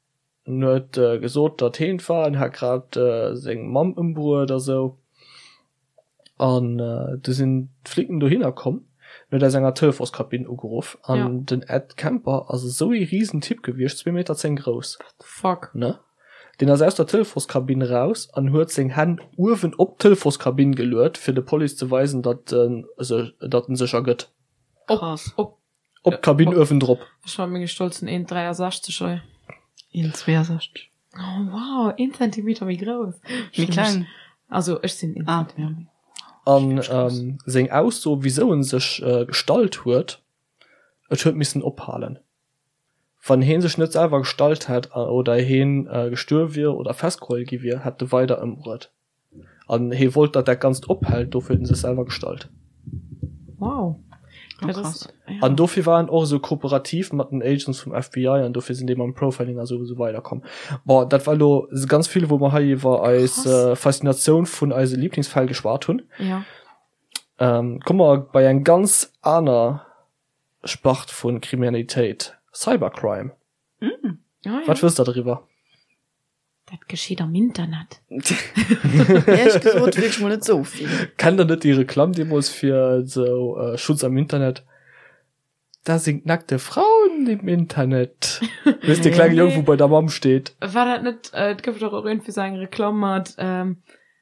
en huet gesot, datt heen et war, en hätt grad seng Mamm ëmbruet a sou. An du sinn d'Flicken dohinner komm, en huet aus enger Telefonskabinn ugeruff an den Ed Kemper ass esou ee Risentyp gewiescht, zwee Meter 10 grouss. What the fuck? Ne. Deen ass aus der Telefonskabinn raus an huet seng Hänn uewen op d'Telefonskabinn geluet, fir de Police ze weisen, datt en datt en sech ergëtt. Krass. Op, Op d'Kabinn uewendrop. Ech mat menge stolzen 1,63 hei. 1,62. Oh wow, een Zentimeter méi grouss. Méi kleng. Also ech sinn een Ah, Zentimeter méi. An seng Ausso, wisou en sech gestallt huet, et huet missen ophalen. Wann heen sech net selwer gestallt hätt oder heen gestuerw wier oder festgeholl gi wier, hätt e weider ëmbruet. An hee wollt, datt dat Ganzt ophält, dofir huet en sech selwer gestallt. Wow. Dat ass, ja. An dofir war en och esou kooperativ mat den Agents vum FBI an dofir sinn déi mam Profiling a sou esou weider komm. Bon, dat war elo ganz vill, wou mer hei iwwer eis Faszinatioun vun eise Lieblingsfäll geschwat hunn. Ja. Komme mer bei eng ganz aner Spart vu Kriminalitéit, Cybercrime. Mm. Ah, ja. Wat wësst der driwwer? Dat geschitt am Internet. Ehrlech gesot wierklech mol net sou vill. Kennt der net déi Reklamm deemools fir sou äh, Schutz am Internet? Da sind nackte Frauen im Internet. Weess de klenge Jong, wou bei der Mamm steet. War dat net, äh, et gouf dach och iergendwéi sou eng Reklamm mat, ähm,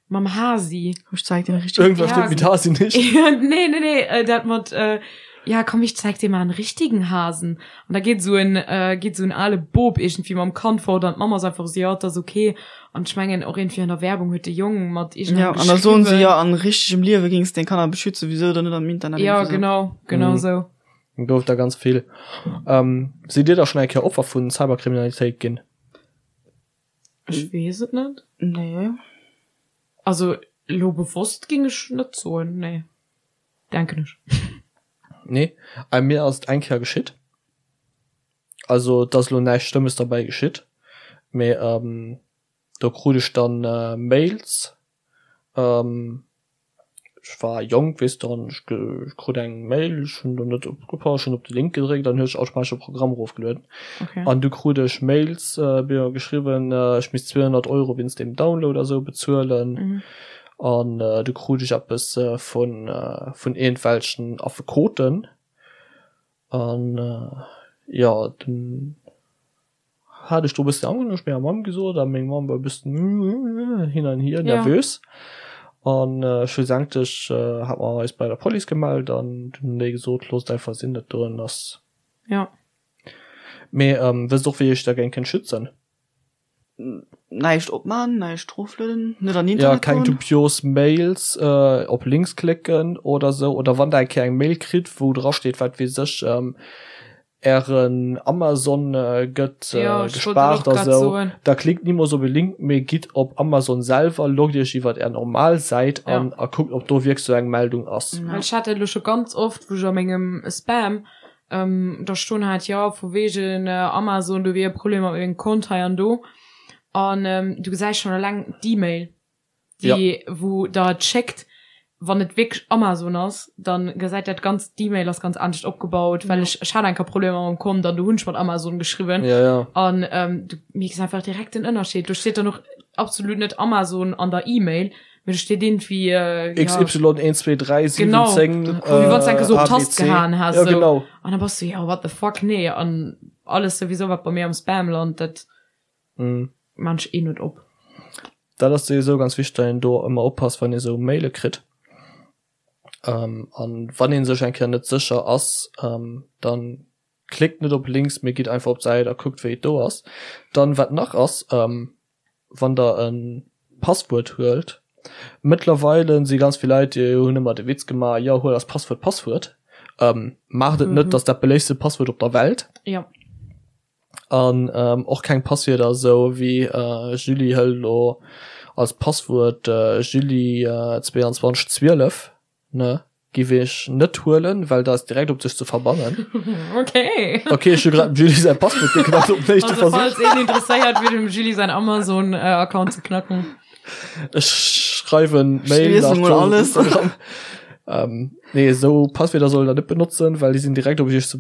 Mam Hasi. Ech zeig dir richtig. Irgendwas Ja, stimmt mit Hasi nicht. nee, nee, nee, äh, dat mat, äh, ja, komm, ich zeig dir mal einen richtigen Hasen. Und da geht so ein, äh, geht so ein ale Bob irgendwie mam Kand fort an d'Mama ass einfach so, ja, dat ass okay. An ech mengen och irgendwie an der Werbung huet de Jong mat Ja, irgendeinem an da soen se geschriwwen. ja, an richtegem Liewe gings deng Kanner beschützen, wieso dann net am Internet? Ja, Irgendwie so. genau, genau Mhm. so. Gouf da ganz vill. Ähm, sidd Dir da schon eng Kéier Opfer vun Cyberkriminalitéit ginn? Ech weess et net. Nee. Also elo bewosst ging ech net soen, nee. Denken ech. Nee, bei mir ass et eng Kéier geschitt. Also et ass elo näischt Schlëmmes derbäi geschitt, mee do krut ech dann Mails, Ech war jonk, weess de, an ech krut eng Mail, ech hunn do net opgepasst, ech hunn op de Link gedréckt an huet sech automatesch e Programm erofgelueden. Okay. An du krut ech Mails, mir geschriwwen, ech misst 200 Euro wéinst deem Download a sou bezuelen. Mhm. An du krut ech eppes vun, vun iergendwelchen Affekoten. An jo, dunn hat ech do e bëssen Angscht, hunn ech menger Mamm gesot a meng Mamm war e bëssen hin an hier nervös. An schlussendlech hat mer eis bei der Police gemellt an dunn hunn déi gesot, loosst einfach sinn, dat doen ass. Jo. Mee wësst och wéi iech dergéint kënnt schützen? Näischt opman, näischt roflueden, net an Ja, Internet keng goen. dubios Mails, op Links klécken oder sou. Oder wann der eng Kéier eng Mail kritt, wou dra steet, wat weess ech, ären Amazon gëtt Ja, ech wollt dat gespaart och a grad sou, soen. da klickt nimools op e Link, mee gitt op Amazon selwer, loggt iech iwwert är normal Säit Ja. an a kuckt, ob do wierklech sou eng Meldung ass. Well ech hat dat elo scho ganz oft, wou ech a mengem Spam da stoen hat, jo vu wegen Amazon, do wier e Problem mat mengem Kont hei an do. An du gesäis schonn eleng d'E-Mail, déi wou der et schéckt. Wann et wierklech Amazon ass, dann gesäit dat ganzt, d'E-Mail ass ganz anescht opgebaut, well ech, ech hat eng Kéier Problemer mam Kont an do hunn ech mat Amazon geschriwwen. Ja, ja. An ähm, du mierks einfach direkt den Ënnerscheed. Do steet dann och absolut net Amazon an der E-Mail, mee do steet iergendwéi, äh, ja, XY 1, 2, 3, 7, Genau. 10, wéi wann s du eng Kéier sou op d'Tast ABC. gehaen häss, Ja, sou. genau. An da bass du, ja, what the fuck, nee. An alles souwisou, wat bei mir am Spam lant, dat Mhm. maan ech eh net op. Dat ass souwisou ganz wichteg, datt een do ëmmer oppasst, wann ee sou Maile kritt. Ähm, an wann ee sech eng Kéier net sécher ass, ähm, dann klickt net op Links, mee gitt einfach op d'Säit a kuckt, wéi et do ass. Dann, wat nach ass, ähm, wann der e Passwuert huelt, mëttlerweile si ganz vill Leit, déi hunn ëmmer de Witz gemaach, jo, huel als Passwuert Passwuert. Ähm, maacht et net, dat ass dat beléiftste Passwuert op der Welt. Jo. An och keng Passwierder esou wéi Julie hëlt elo als Passwuert Julie 22 12 ne giff ech net huelen, well dat ass direkt op dech ze verbannen. Okay. Okay, ech hu grad dem Julie säi Passwuert geknackt op den éischte Also Versuch. falls een interesséiert wier dem Julie säin Amazon Account ze knacken. Ech schreiwen Mail Ech liesen nach mol alles. Ähm, nee, esou Passwierder sollt der net benotzen, well déi sinn direkt op iech ze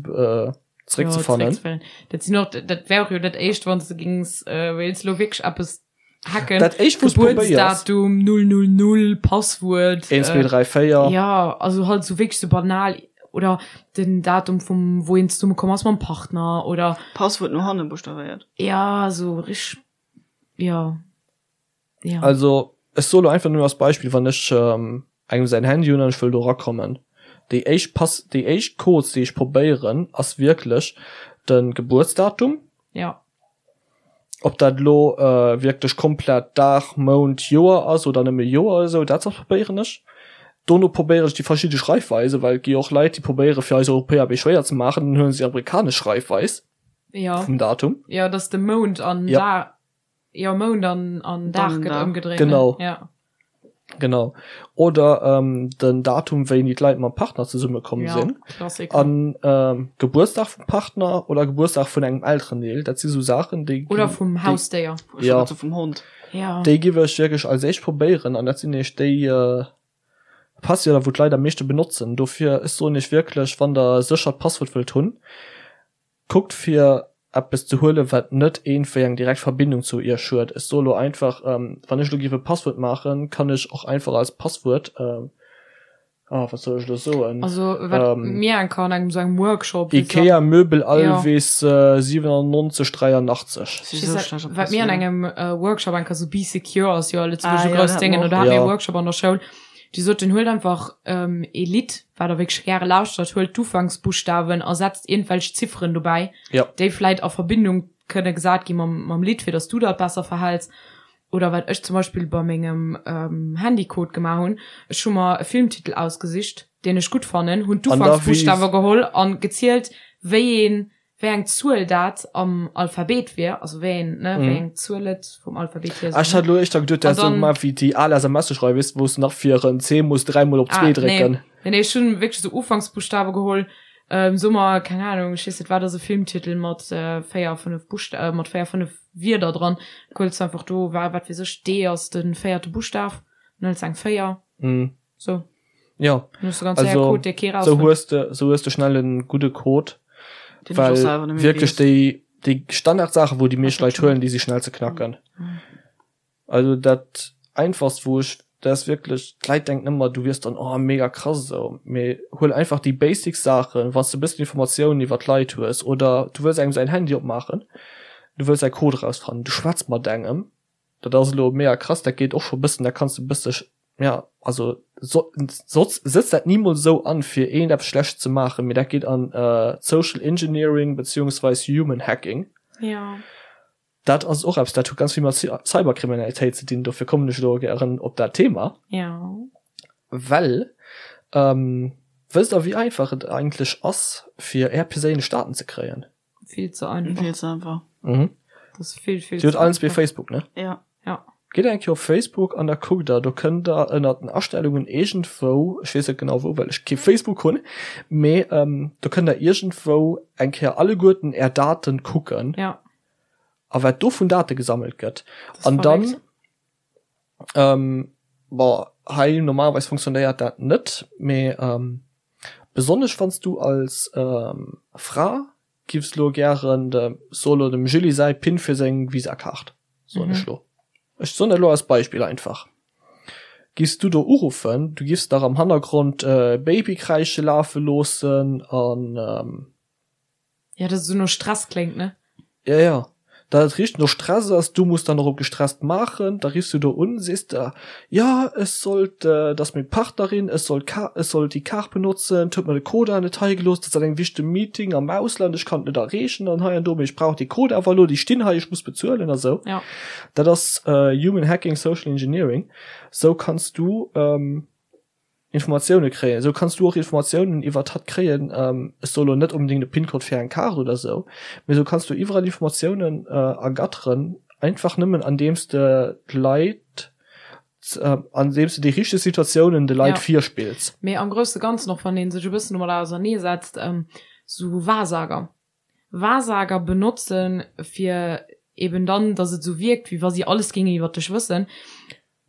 zréckzefannen. Ja, zréckzefannen. Dat sinn och, dat wär och jo dat éischt, wann s de gings, äh, wéilts lo wierklech eppes hacken. Dat éischt, wou s probéiers. Gebuertsdatum, 000, Passwuert. 1, 2, 3, 4. Ja, also halt sou wierklech sou banal. Oder den Datum vum, wou een zesumme komm ass mam Partner, oder. Passwuert no hanne buschtavéiert. Ja, sou richteg, ja. Ja. Also ech soe lo einfach nëmmen als Beispill, wann ech ähm, engem säin Handy hunn an ech wëll do erakommen, déi éischt Pass, déi éischt Codes, déi ech probéieren, ass wierklech de Gebuertsdatum. Ja. Ob dat elo äh, wierklech komplett Dag, Mount, Joer ass oder nëmme Joer oder esou, dat probéieren ech. Dono probéieren ech déi verschidde Schreifweisen, well et gi jo och Leit, déi probéiere fir eis Europäer méi schwéier ze maachen, dann huele se déi amerikanesch Schreifweis Ja. vum Datum. Ja, dass de Mount an Ja. Dag. Jo, Mount an, an Dag gëtt ëmgedréint. Genau. Ja. Genau. Oder ähm, den Datum, wéini d'Leit mam Partner zesummekomm ja, sinn. Klassiker. An ähm, Gebuertsdag vum Partner oder Gebuertsdag vun engem Elterendeel. Dat si sou Saachen, déi. Oder vum Hausdéier. Ja. Also vum Hond. Ja. Déi giff ech wierklech als éischt probéieren an dat sinn nämlech déi äh, Passwierder, wou d'Leit am meeschte benotzen. Dofir, ech soen iech wierklech, wann der e séchert Passwuert wëllt hunn, Kuckt fir eppes ze huelen wat net eenwéi eng direkt Verbindung zu iech huet. Ech soe lo einfach, wann ech lo giff e Passwuert maachen, kann ech och einfach als Passwuert, ah wat soll ech lo soen, Also wat mir eng Kéier an engem sou engem Workshop, Ikea Möbel Alvis 97 83. Wat mir an engem Workshop eng Kéier sou Bee Secure ass jo a Lëtzebuerg e grousst Déngen, do hate mir e Workshop an der Schoul, déi soten, huelt einfach ee Lidd, wat der wierklech gäre lauschtert, huelt d'Ufanksbuschtawen a setzt iergendwelch Zifferen dobäi, Ja. déi vläit a Verbindung kënne gesat gi mam, mam Lidd, fir datt s du dat besser verhäls. Oder wat ech zum Beispill bei mengem Handycode gemaach hunn, ech hu mer e Filmtitel ausgesicht, deen ech gutt fannen, hunn d'Ufanksbuschtawe geholl a gezielt, wéi een wéi eng Zuel dat am Alphabet wier, also wéi een, ne, wéi eng Zuel et vum Alphabet hier Ah, ech hat elo éischter geduet, du häss esou gemaach wéi déi al SMS-e schreiwen, weess de, wou s de nach fir en C muss dräimol op zwee drécken. Ah, nee, nee, ech hunn wierklech esou Ufanksbuschtawe geholl, ähm, soe mer, keng Ahnung, ech weess net, wat ass e Filmtitel mat 4, 5 Buschta-, mat 4, 5 Wierder dran, huels du einfach do, wa, wat weess ech, D ass de véierte Buschtaf, dann hëls eng 4. So. Ja. Also, so hues de, so hues de schnell en gudde Code, well wierklech déi, déi Standardsaachen, wou déi meescht Leit huelen, déi si schnell ze knacken. Mhm. Also dat einfachst, wou ech, dat ass wierklech, d'Leit denken ëmmer, du wiers dann, oh mega krass esou, mee huel einfach déi basic Saachen, wann s de e bëssen Informatiounen iwwer d'Leit hues oder du wëlls engem säin Handy opmaachen, du wëlls säi Code erausfannen, du schwätz mat engem, Dat ass elo mega krass, dat geet och scho bëssen, da kanns de bësse, ja, also so, soz, sëtz dat nimools esou an, fir eent eppes Schlechtes ze maachen, mee dat geet an Social Engineering beziehungsweis Human Hacking. Ja. Dat ass och eppes, dat huet ganz vill mat Cyberkriminalitéit ze dinn, dofir kommen ech elo gären op dat Thema. Ja. Well, wësst der, wéi einfach et eigentlech ass, fir är perséinlech Daten ze kréien? Vill ze einfach. Vill ze einfach. Mhm. Das ist vill, vill Dir hutt allen zwee Facebook, ne? Ja. Ja. Gitt eng Kéier op Facebook an da kuckt der, do kënnt der ënnert den Astellungen iergendwou, ech weess net genau wou, well ech kee Facebook hunn, mee ähm, do kënnt der iergendwou eng Kéier alleguerten är Daten kucken. Ja. A wat do vun Date gesammelt gëtt. Das An dann, verréckt. ähm, bon. Hei normalerweis funktionéiert dat net, mee besonnesch wann s du als Fra giffs lo gären dem, so lo dem Julie säi Pin fir seng Visa-Kaart, soen ech lo, ech soen dat lo als Beispill einfach, giffs du do uruffen, du giffs nach am Hannergrond Babykräische lafe loossen an. Ja, dass et esou no Stress kléngt, ne? Ja, ja. Dat et richteg no Stress ass, du muss dann och op gestresst maachen, da riffs du do un, sees de, jo, ech sollt, dat ass meng Partnerin, ech soll d'Ka-, ech soll déi Kaart benotzen, et huet mer de Code awer net hei gelooss, dat ass an engem wichtege Meeting am Ausland, ech kann et net erreechen an hei an do, mee ech brauch dee Code awer elo, déi stinn hei, ech muss bezuelen a sou. Ja. Dat ass Human Hacking, Social Engineering. Sou kanns du. Informatioune kréien. Esou kanns du och Informatiounen iwwert hatt kréien, ech soe lo net onbedéngt e PIN-Code fir eng Kaart oder esou, mee esou kanns du iwwerall Informatiounen ergatteren, einfach nëmmen andeems de d'Leit, andeems de déi richteg Situatiounen de Leit Ja. virspills. Mee am grousse Ganzen, och wann ee sech e bëssen domadder auserneesetzt, esou Wahrsager, Wahrsager benotzen, fir eben dann, dass et esou wierkt, wéi wa si alles géingen iwwert dech wëssen,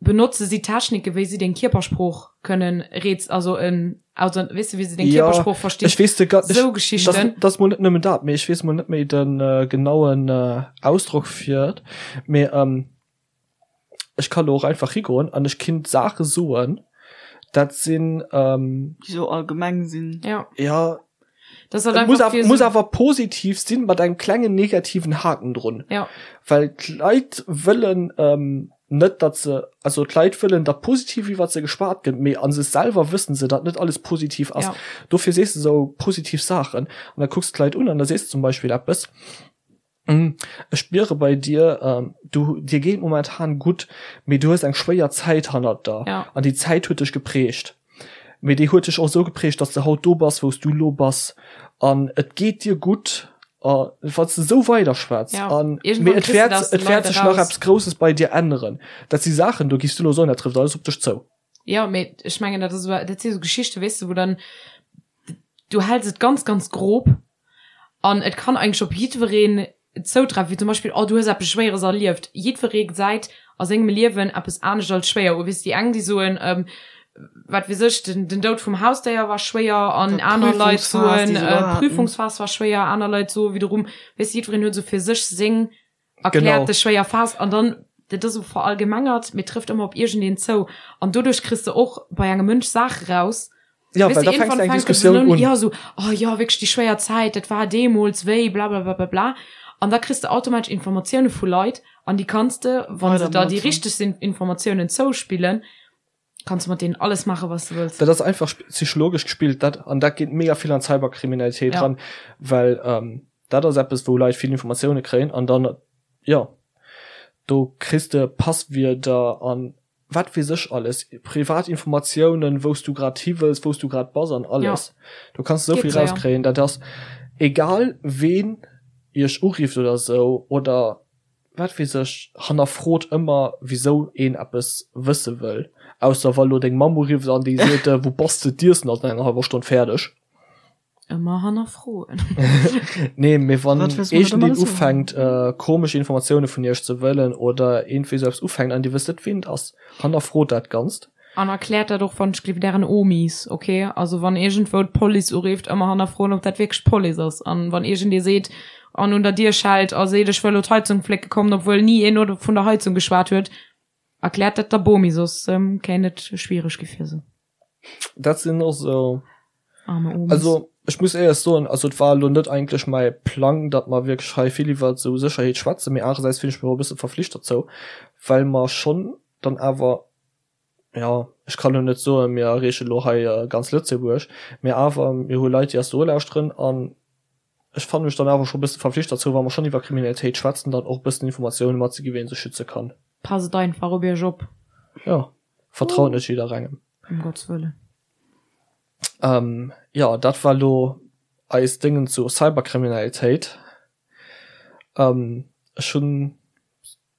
Benotze si Techniken, wéi si deng Kierpersprooch kënnen reez, also en, also weess de, wéi se deng Ja, Kierpersprooch verstinn? ech weess de ga-, Sou ech, Geschichten. dat, dat ass mol net nëmmen dat, mee ech weess mol net méi de genauen Ausdrock fir et, mee ech kann do och einfach higoen an ech kinnt Saache soen, dat sinn. Déi sou allgemeng sinn. Ja. Ja. Das hat Et muss einfach awer, fir muss so awer positiv sinn, mat engem klengen negativen Haken drun. Ja. Well d'Leit wëllen ähm, net, datt se, also d'Leit wëllen, datt positiv iwwer se geschwat gëtt, mee a sech selwer wëssen se, datt net alles positiv ass. Ja. Dofir sees de sou positiv Saachen an da kucks de d'Leit un an da sees de zum Beispill eppes, Ech spiere bei dir, du, dir geet momentan gutt, mee du hues eng schwéier Zäit hannert der Ja. an déi Zäit huet dech geprägt. Mee déi huet dech och esou geprägt, dass de haut do bass, wou s du elo bass an et geet dir gutt a wann s de esou weiderschwätz Ja. an mee Iergendwann et kriss de wäert, dat aus de et wäert Leit sech nach eraus. eppes Grousses bei dir änneren. Dat si Saachen, do giffs du elo soen, dat trëfft alles op dech zou. Ja, mee ech mengen, dat ass, dat si sou Geschichten, weess de, wou dann, du häls et ganz, ganz grob An et kann eigentlech op jiddwereen zoutreffen, wéi zum Beispill, oh du hues eppes Schwéieres erlieft. Jiddweree gesäit a sengem Liewen eppes anescht als schwéier u. Weess déi eng, déi soen, wat weess ech, den, den Doud vum Hausdéier war schwéier an aner Leit soen, d'Prüfungsphas war schwéier, aner Leit soe wiederum, weess de, jiddwereen huet esou fir sech seng erkläert de schwéier Phas an dann, dat ass esou verallgemengert, mee trëfft ëmmer op iergendeen zou an doduerch kriss de och bei engem Mënsch Saache raus, Ja, Weißt well du, da fängst irgendwann du eng fänkt es Diskussioun un, un. ja, so, oh ja, wierklech déi schwéier Zäit, dat war deemools wéi blablablablabla. An da kriss de automatesch Informatioune vu Leit an déi kanns de, wa se Weider der déi benotzen. richteg sinn, Informatiounen zouspillen, kanns de mat deenen alles maachen, wat s de wëlls. Dat ass einfach psychologesch gespillt, dat, an dat geet mega vill an d'Cyberkriminalitéit Ja. ran, well ähm, dat ass eppes, wou Leit vill Informatioune kréien an dann, jo, do kriss de Passwierder an wat weess ech alles, privat Informatiounen, wou s du grad hi wëlls, wou s du grad bass an alles. Ja. Du kanns esou Geet vill séier. rauskréien, dat ass egal ween iech urifft oder esou oder wat weess ech, hannerfrot ëmmer wisou een eppes wësse wëll, ausser wa lo deng Mamm urifft an déi seet, wou bass de, d'Iessen ass an enger hallwer Stonn fäerdeg. Ëmmer hannerfroen. Nee, mee wann Wat wëlls du mat iergendeen alles soen? ufänkt komesch Informatioune vun iech ze wëllen oder iergendwéi sou eppes ufänkt an dir wësst net ween et ass, hannerfrot dat Ganzt. An erkläert dat och wann ech gleef dären Omis, ok? Also wann iergendwou d'Police urifft, ëmmer hannerfroen ob dat wierklech d'Police ass. An wann iergendee seet an un der Dier schellt a seet ech wëll lo d'Heizung flécke kommen, obwuel ni een vun der Heizung geschwat huet, erkläert dat der Bomi, soss kéint et schwiereg gi fir se. Dat sinn och sou. Arme Omis. Also ech muss éierlech soen, also et war elo net eigentlech mäi Plang, datt mer wierklech hei vill iwwert esou Sécherheet schwätzen, mee anerersäits fillen ech mech och e bësse verflicht dozou, well mer schonn dann awer, jo, ech kann elo net soen, mir erreeche elo hei ganz Lëtzebuerg, mee awer mir hu Leit, déi eis do ulauschteren an ech fanne mech dann awer scho e bësse verflicht dozou, wa mer schonn iwwer Kriminalitéit schwätzen, dann och e bëssen Informatioune matzeginn, wéi ee sech schütze kann. Passt einfach op iech op. Jo, vertraut net jidderengem. Ëm Gotts Wëllen. Ähm, jo, dat war lo eis Déngen zu Cyberkriminalitéit. Ähm, ech hunn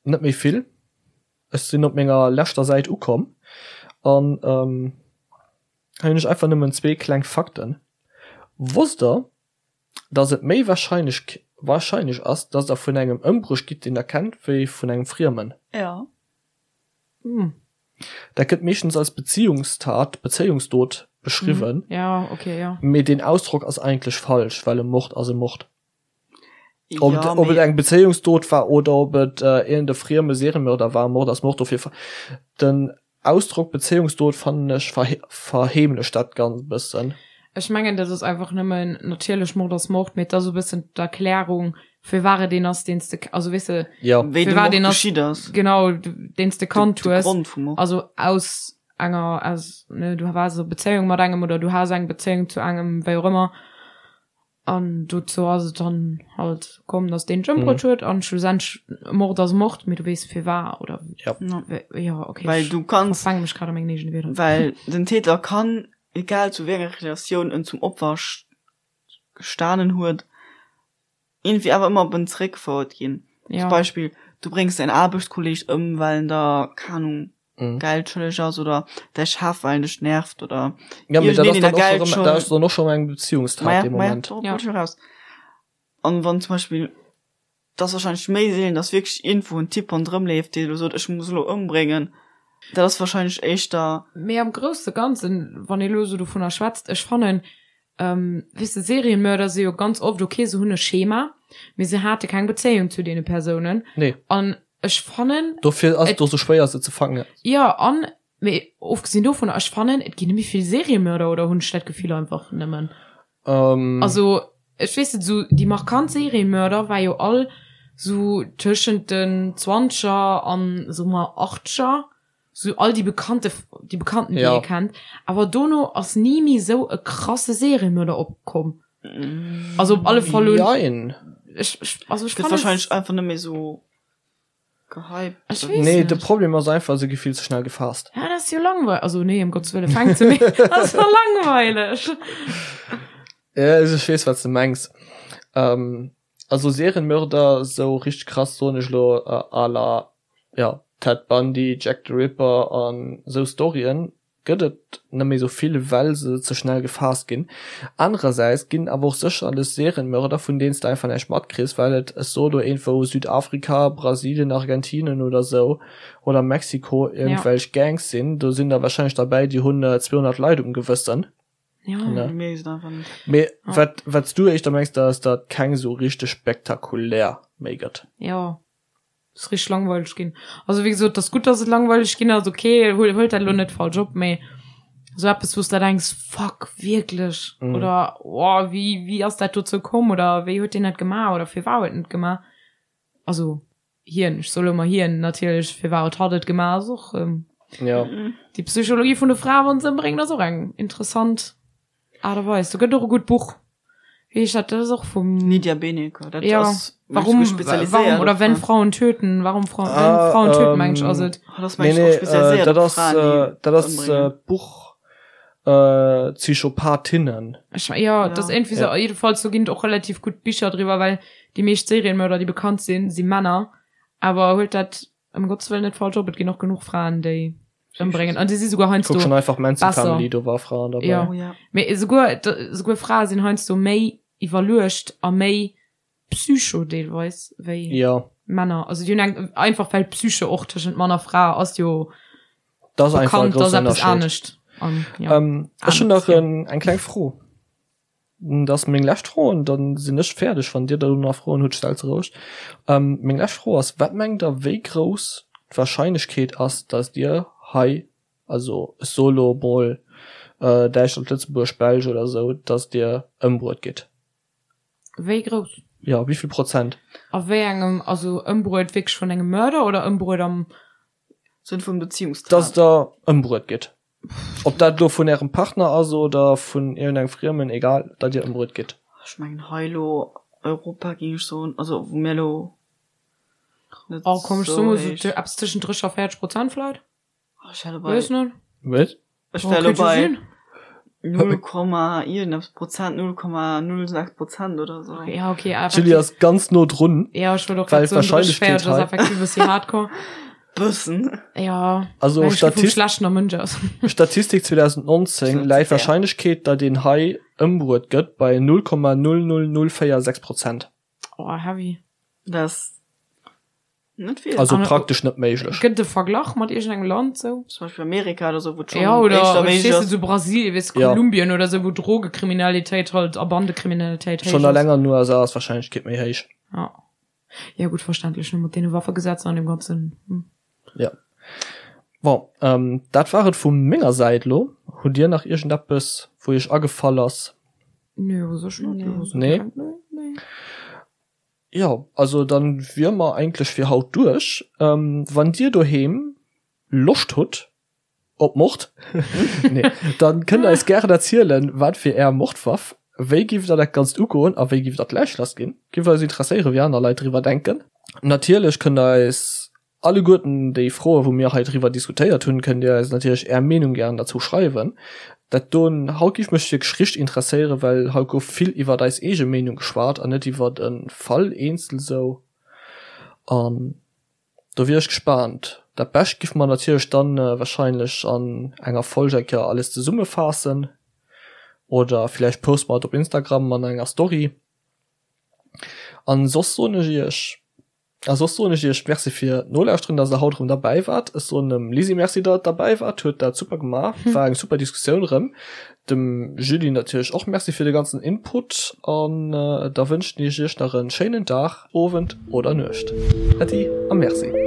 net méi vill. Ech sinn op menger leschter Säit ukomm an ähm, hei hunn ech einfach nëmmen zwee kleng Fakten. Wosst der, dass et méi wahrscheinlech wahrscheinlech ass, dass der vun engem ëmbruecht gitt, deen der kennt, wéi vun engem Friemen? Ja. Hm. Dat gëtt meeschtens als Beziehungstat, Bezéiungsdot beschriwwen. Ja, okay, ja. Mee deen Ausdrock ass eigentlech falsch, well e Mord ass e Mord. Ob et, ob et eng Bezéiungsdot war oder ob et iergend e frieme Seriemörder war, Mord ass Mord. Dofir den Ausdrock Bezéiungsdot fannen ech verheemlecht dat Ganzt e bëssen. Ech mengen dat ass einfach nëmmen, natierlech Mord ass Mord, mee et ass e bëssen d'Erklärung firwat et een ass deen s de, also weess de, Jo. Wéi de firwat Mord een ass, geschitt ass. genau, deen s de kannt De hues, Grond vum Mord. also aus enger, aus, ne, du waars a Bezéiung mat engem oder du has eng Bezéiung zu engem, wéi och ëmmer. An dozou ass et dann halt komm, dass deen d'Ëmbruet huet an schlussendlech, Mord ass Mord, mee du weess firwat oder Ja. jo okay, Well ech du kanns, verfänke mech grad a mengen eegene Wierder. well den Täter kann, egal zu wéi enger Relatioun en zum Opfer gestanen huet, iergendwéi awer ëmmer op en zeréckgefouert ginn. Ja. Zum Beispill, du bréngs däin Aarbechtskolleeg ëm, well en der, keng Ahnung, Mhm. Geld schëlleg ass oder däi Chef, well en dech nervt oder Ja, mee dat iergendeen, ass deen dann der och Geld erëm, schëll. dat ass dann och schonn eng Beziehungstat Maja, dee maja, Moment. dorop Ja. wollt ech eraus. An wann zum Beispill, et ass wahrscheinlech méi seelen, dass wierklech iergendwou en Typ ronderëm leeft, dee elo sot, ech muss elo ëmbréngen. Dat ass wahrscheinlech éischter. Mee am grousse Ganzen, wann ee elo esou dovunner schwätzt, ech fannen, Weess de, Serienmörder si jo ganz oft, okay, se hunn e Schema, mee se hate keng Bezéiung zu deene Persounen. Nee. An ech fannen. Dofir ass et och sou schwéier, se ze fangen. Jo, an, mee ofgesinn dovunner, ech fannen, et ginn net méi vill Seriemörder, oder hunn ech dat Gefill einfach nëmmen? Also, ech weess net, sou déi markant Seriemörder war jo all sou tëschent den Zwanzeger an, soe mer, Achtzeger. Sou all déi bekannte, déi bekannten, déi Ja. ee kennt. Awer dono ass ni méi sou e krasse Seriemörder opkomm. Also op alle Fall hunn Jein. ech, ech, also ech Gëtt fannen wahrscheinlech einfach net méi sou gehypt. Ech weess Nee, net. de Problem ass einfach, se gi vill ze schnell gefaasst. Ja, dat ass jo langweileg. Also nee, ëm Gottes Wëlle, fänkt se méi. Dat ass jo langweileg. Ja, also ech weess, wat s de mengs. Ähm, also Serienmörder, sou richteg krass, soen ech elo, à la ja, Ted Bundy, Jack the Ripper an esou Storyen gëtt et net méi sou vill, well se ze schnell gefaasst ginn. Anerersäits ginn awer och sécherlech Serienmörder, vun deenen s de einfach näischt matkriss, well et, ech soe lo iergendwou Südafrika, Brasilien, Argentinien oder sou oder Mexiko iergendwelch Gangs sinn. Do sinn der warscheinlech derbäi, déi hunn 200 Leit um Gewëssen. Ja. Ne? Mir sinn einfach net. Mee wat, wat s du éischter mengs, dat ass, datt keng sou richteg spektakulär méi gëtt. Jo. Ass richteg langweileg ginn. Also wéi gesot, ass gutt, dass et langweileg ginn ass, okay, huel, huelt dat elo net falsch op, mee sou eppes, wou s de denks, fuck, wierklech? Mhm. Oder oh, wéi, wéi ass dat dozou komm? Oder wéi huet deen dat gemaach? Oder firwat huet en et gemaach? Also hien, ech soe lo emmer hien, natierlech, firwat huet hatt et gemaach, ass och Ja. déi Psychologie vun de Frae, wann se ëmbréngen, ass och eng interessant. Aart a Weis. Do gëtt och e gutt Buch. Wéi heescht dat? Dat ass och vum. Lydia Benecke, dat Ja. ass Warum, spezialiséiert warum oder op wenn Fraen. Frauen töten, warum Frauen, Ah, wenn Frauen töten, ähm, meng ech, ass et. Ah, dat ass Nee, meng ech och nee, äh, spezialiséiert dat op ass, Fraen, déi äh, dat ass ëmbréngen. äh, Buch äh, Psychopathinnen. Ech, ja, dat ass Ja. irgendwie Ja. so, jedenfalls do ginn et och relativ gutt Bicher driwwer, well déi meescht Serienmörder, déi bekannt sinn, si Männer. Awer huelt dat ëm Gottes Wëllen net falsch op, et ginn och genuch Fraen, déi ëmbréngen. An déi si souguer heiansdo Kuck schon einfach Manson besser. Family, do war Fraen dabei. Ja. Oh, ja. Mee esouguer, esouguer Frae sinn heiansdo méi iwwerluecht a méi psycho deelweis wéi Ja, Männer. Also déi hunn eng, einfach well Psyche och tëschent Mann a Fra ass jo das ass einfach e bekannt, dass groussen eppes Ënnerscheed. anescht. An, ja. Ähm, ech hunn nach Anescht, ja. en, eng kleng Fro. Dat ass meng lescht Fro an dann sinn ech fäerdeg. Wann Dir da nach Froen hutt, stellt se roueg. Ähm, meng lescht Fro ass, Wat mengt Der, wéi grouss d'Warscheinlechkeet ass, datt Dir hei, also ech soe lo emol Däitschland, Lëtzebuerg, Belsch oder esou, datt Dir ëmbruet gitt? Wéi grouss? Jo, wéi vill Prozent? A wéi engem, also ëmbruet wierklech vun engem Mörder oder ëmbruet am. Sënn vum Beziehungstag. Datt Der ëmbruet gitt. Ob dat elo vun ärem Partner ass oder vun iergendengem Friemen, egal, datt dir ëmbruet gitt. Ech mengen hei elo Europa géing ech soen, also wou mir elo net Oh komm, ech sou soe mol sou héich. eppes tëschent 30 a 40 Prozent vläit. Oh, ech wär elo bei, Weess net. Wat? ech Oh, wär elo kéint jo bei sinn. 0, iergendeppes Prozent, 0,06 Prozent oder sou. Ja, okay, D'Julie effektiv. ass ganz no drun. Ja, ech wollt och Well grad soen, 30, d'Wahrscheinlechkeet 40 ass hei- effektiv e bëssi hardcore. Bëssen. Ja, Also well ech gi vum Statist schlechten Mënsch aus. Statistik 2019 läit d'Wahrscheinlechkeet, datt een hei ëmbruet gëtt, bei 0,00046 Prozent. Oh, heavy. Das. Net vill. Also praktesch net méiglech. Gëtt et e Verglach mat iergendengem Land sou? Zum Beispill Amerika oder sou, wou et schonn Ja, oder éischter méiglech verstees du, ass. sou Brasilien, weess, Ja. Kolumbien oder sou, wou Drogekriminalitéit halt a Bandekriminalitéit héich Schonn ass. eleng an den USA ass d'Warscheinlechkeet méi héich. Ja. Ja gutt, verständlech, ne, mat deene Waffegesetzer an deem ganzen, hm. Ja. Bon, ähm, dat war et vu menger Säit elo. Hutt Dir nach iergendeppes, wou Iech agefall ass? Nee, u sech net. Nee? Nee, nee. Jo, also dann wier mer eigentlech fir haut duerch. Wann dir doheem Loscht hutt op Mord, nee, dann kënnt der eis gären erzielen, wat wier är Mordwaff, wéi giff der dat Ganzt ugoen a wéi giff der d'Läich lass ginn. Giff eis interesséieren, wéi aner Leit driwwer denken. Natierlech kënnt der eis Alleguerten déi Froen, wou mir hei driwwer diskutéiert hunn, kënnt Dir eis natierlech Är Meenung gären derzou schreiwen. Dat doen haut giff mech wierklech richteg interesséieren, well haut gouf vill iwwert eis eege Meenung geschwat an net iwwert e Fall eenzel sou. An do wier ech gespaant. Dat Bescht giff mer natierlech dann wahrscheinlech an enger Folg eng Kéier alles zesummefaassen oder villäicht poste mer et op Instagram an enger Story. An soss soen ech Iech. A soss soen ech iech Merci fir d'Nolauschteren, dass der haut erëm derbäi waart. Ech soen dem Lisi Merci, datt et derbäi waart, huet dat super gemaach, war eng super Diskussioun erëm. Dem Julie natierlech och Merci fir de ganzen Input an da wënschen ech iech nach en schéinen Dag, Owend oder Nuecht. Äddi a Merci.